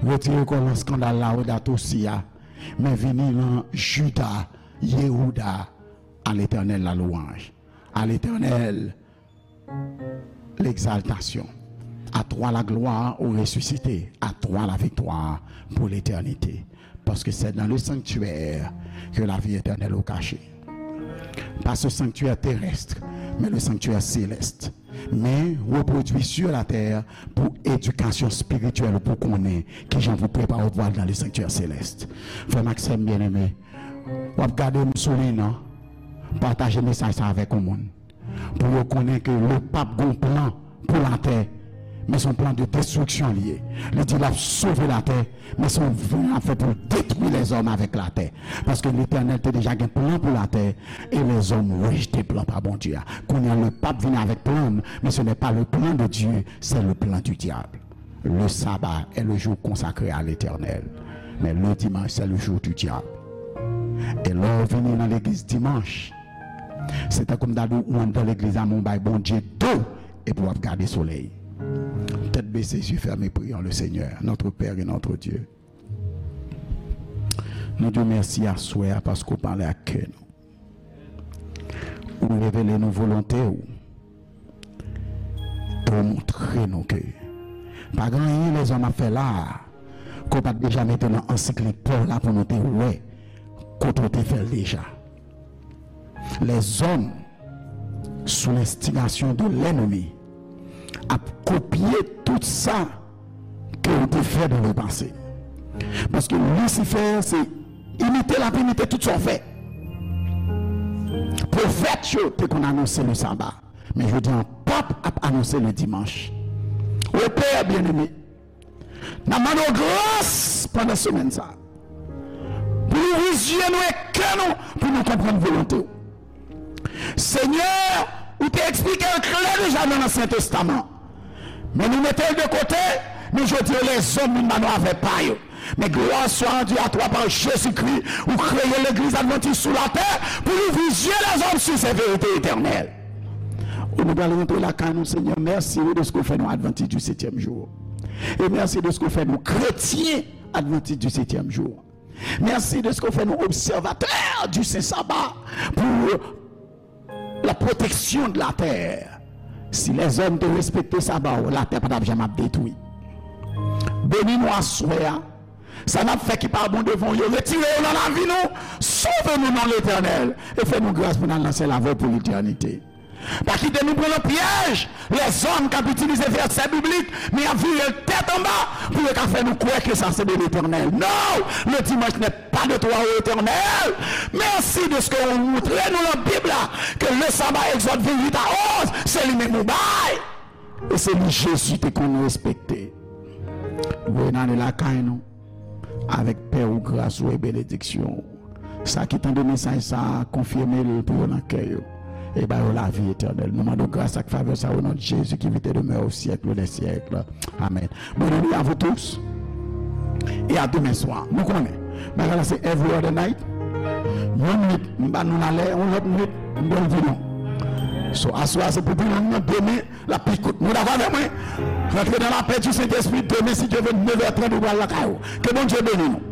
Retire kò w nan skandal Laudato si a, men vini nan Juda, Yehuda, à l'Éternel la louange. À l'Éternel l'exaltation. À toi la gloire au ressuscité. À toi la victoire pour l'éternité. Parce que c'est dans le sanctuaire que la vie éternelle est cachée. Pas ce sanctuaire terrestre, mais le sanctuaire céleste. Men repwodui sur la terre pou edikasyon espirityèl, pou konnen kijan pou prepare w pou al dans le sanctuaire céleste. Frè m ak sè m byeneme, w ap gade m sou liy nan, pataje mesaj sa avèk yon moun. Pou yo konnen ke le pap gen yon plan pou latè, men se yon plan de destriksyon li ye. Li di l ap sove latè, men se yon plan l ap fè pou l detwi lèzòm avèk latè. Paske Letènèl te deja gen plan pou latè, e lèzòm rejte plan pa Bondye a. Kounye a, le pap vini avèk plan l, men ce n'est pas le plan de Dieu, c'est le plan du diable. Le sabbat est le jour consacré à l'Éternel. Mais le dimanche, c'est le jour du diable. E lè w vini nan legliz dimanch, se tankou m ta di w, ou anndan legliz la, men w bay Bondye do, epi w ap gade solèy. Tèt bese, zye fèmen, priyons le Seigneur, notre Père et notre Dieu. Nou di w mèsi aswè a paske w pale ak kè nou. Ou revele nou volonte w. E w montre nou ke pa gen anyen lèzòm ap fè la a ke w pa t deja mete nan ansiklopèdi la pou nou te wè kote w te fè l deja. Lèzòm, sou lenstigasyon de lènmi, ap kopye tout sa ke w te fè dans le passé. Paske Lisifè, se imite l ap imite tout sa w fè. Pwofèt yo te konn anonse le saba, men jodi a, pap ap anonse le dimanch. O Pè byeneme, n ap mande w gras pandan semèn sa a, pou w louvri zye nou e kè nou, pou nou konprann volonte w. Senyè, ou te eksplike l klè deja nan Ansyen Testaman. Men nou mete l de kote, men jodi a lèzòm vin ba nou avè pa yo. Men gloire soit rendue à toi par Jésus-Christ, ou kreye legliz advantis sou latè pou louvri zye lèzòm sur ces vérités éternelles. Ou nou pral rantre lakay nou, Senyè, mèsi wi dèske w fè nou advantis du septième jour. E mèsi dèske w fè nou kretyen advantis du septième jour. Mèsi dèske w fè nou obsèvatè du saint sabbat pour la protection de la terre. Si lèzòm te respekte saba w, latè pa t ap janm ap detwi. Beni nou aswè a. Sa n ap fè ki pa bon devan w yo, retire yo nan lavi nou. Sove nou, non Letènèl, e fè nou gras pou n al nan syèl avè w pou letènite. Pa kite nou pran nan pyèj lèzòm k ap itilize vèsè biblik, men y ap vire l tèt anba pou yo ka fè nou kwè ke sa se de Letènèl. Non! Le dimanche n'est pas de toi, ô Éternel. Mèsi dèske ou montre nou nan Bib la ke le sabbat, Exode vingt-huit à onze, se li menm ou bay. E se li Jezi te konn respekte. Voye n ale lakay nou avèk pè ou, gras ou e benediksyon ou. Sa ki tande mesaj sa a, konfime l pou yo nan kè yo e ba yo lavi etènèl. Nou mande w gras ak favè sa o non de Jezi ki vit e demè o syèk de syèk. Amèn. Bonne nuit à vous tous et à demain soir. Nou konnen bagay la se every other night. Yon nwit m ba nou lalè, yon lòt nwit m ba nou vino. So aswè a se pou vino, demen l ap pi kout. Nou dakò avè mwen? Rantre nan lapè di Sentespri. Demen, si Dye vle, nevè trant ou pral lakay ou. Ke Bondye beni nou.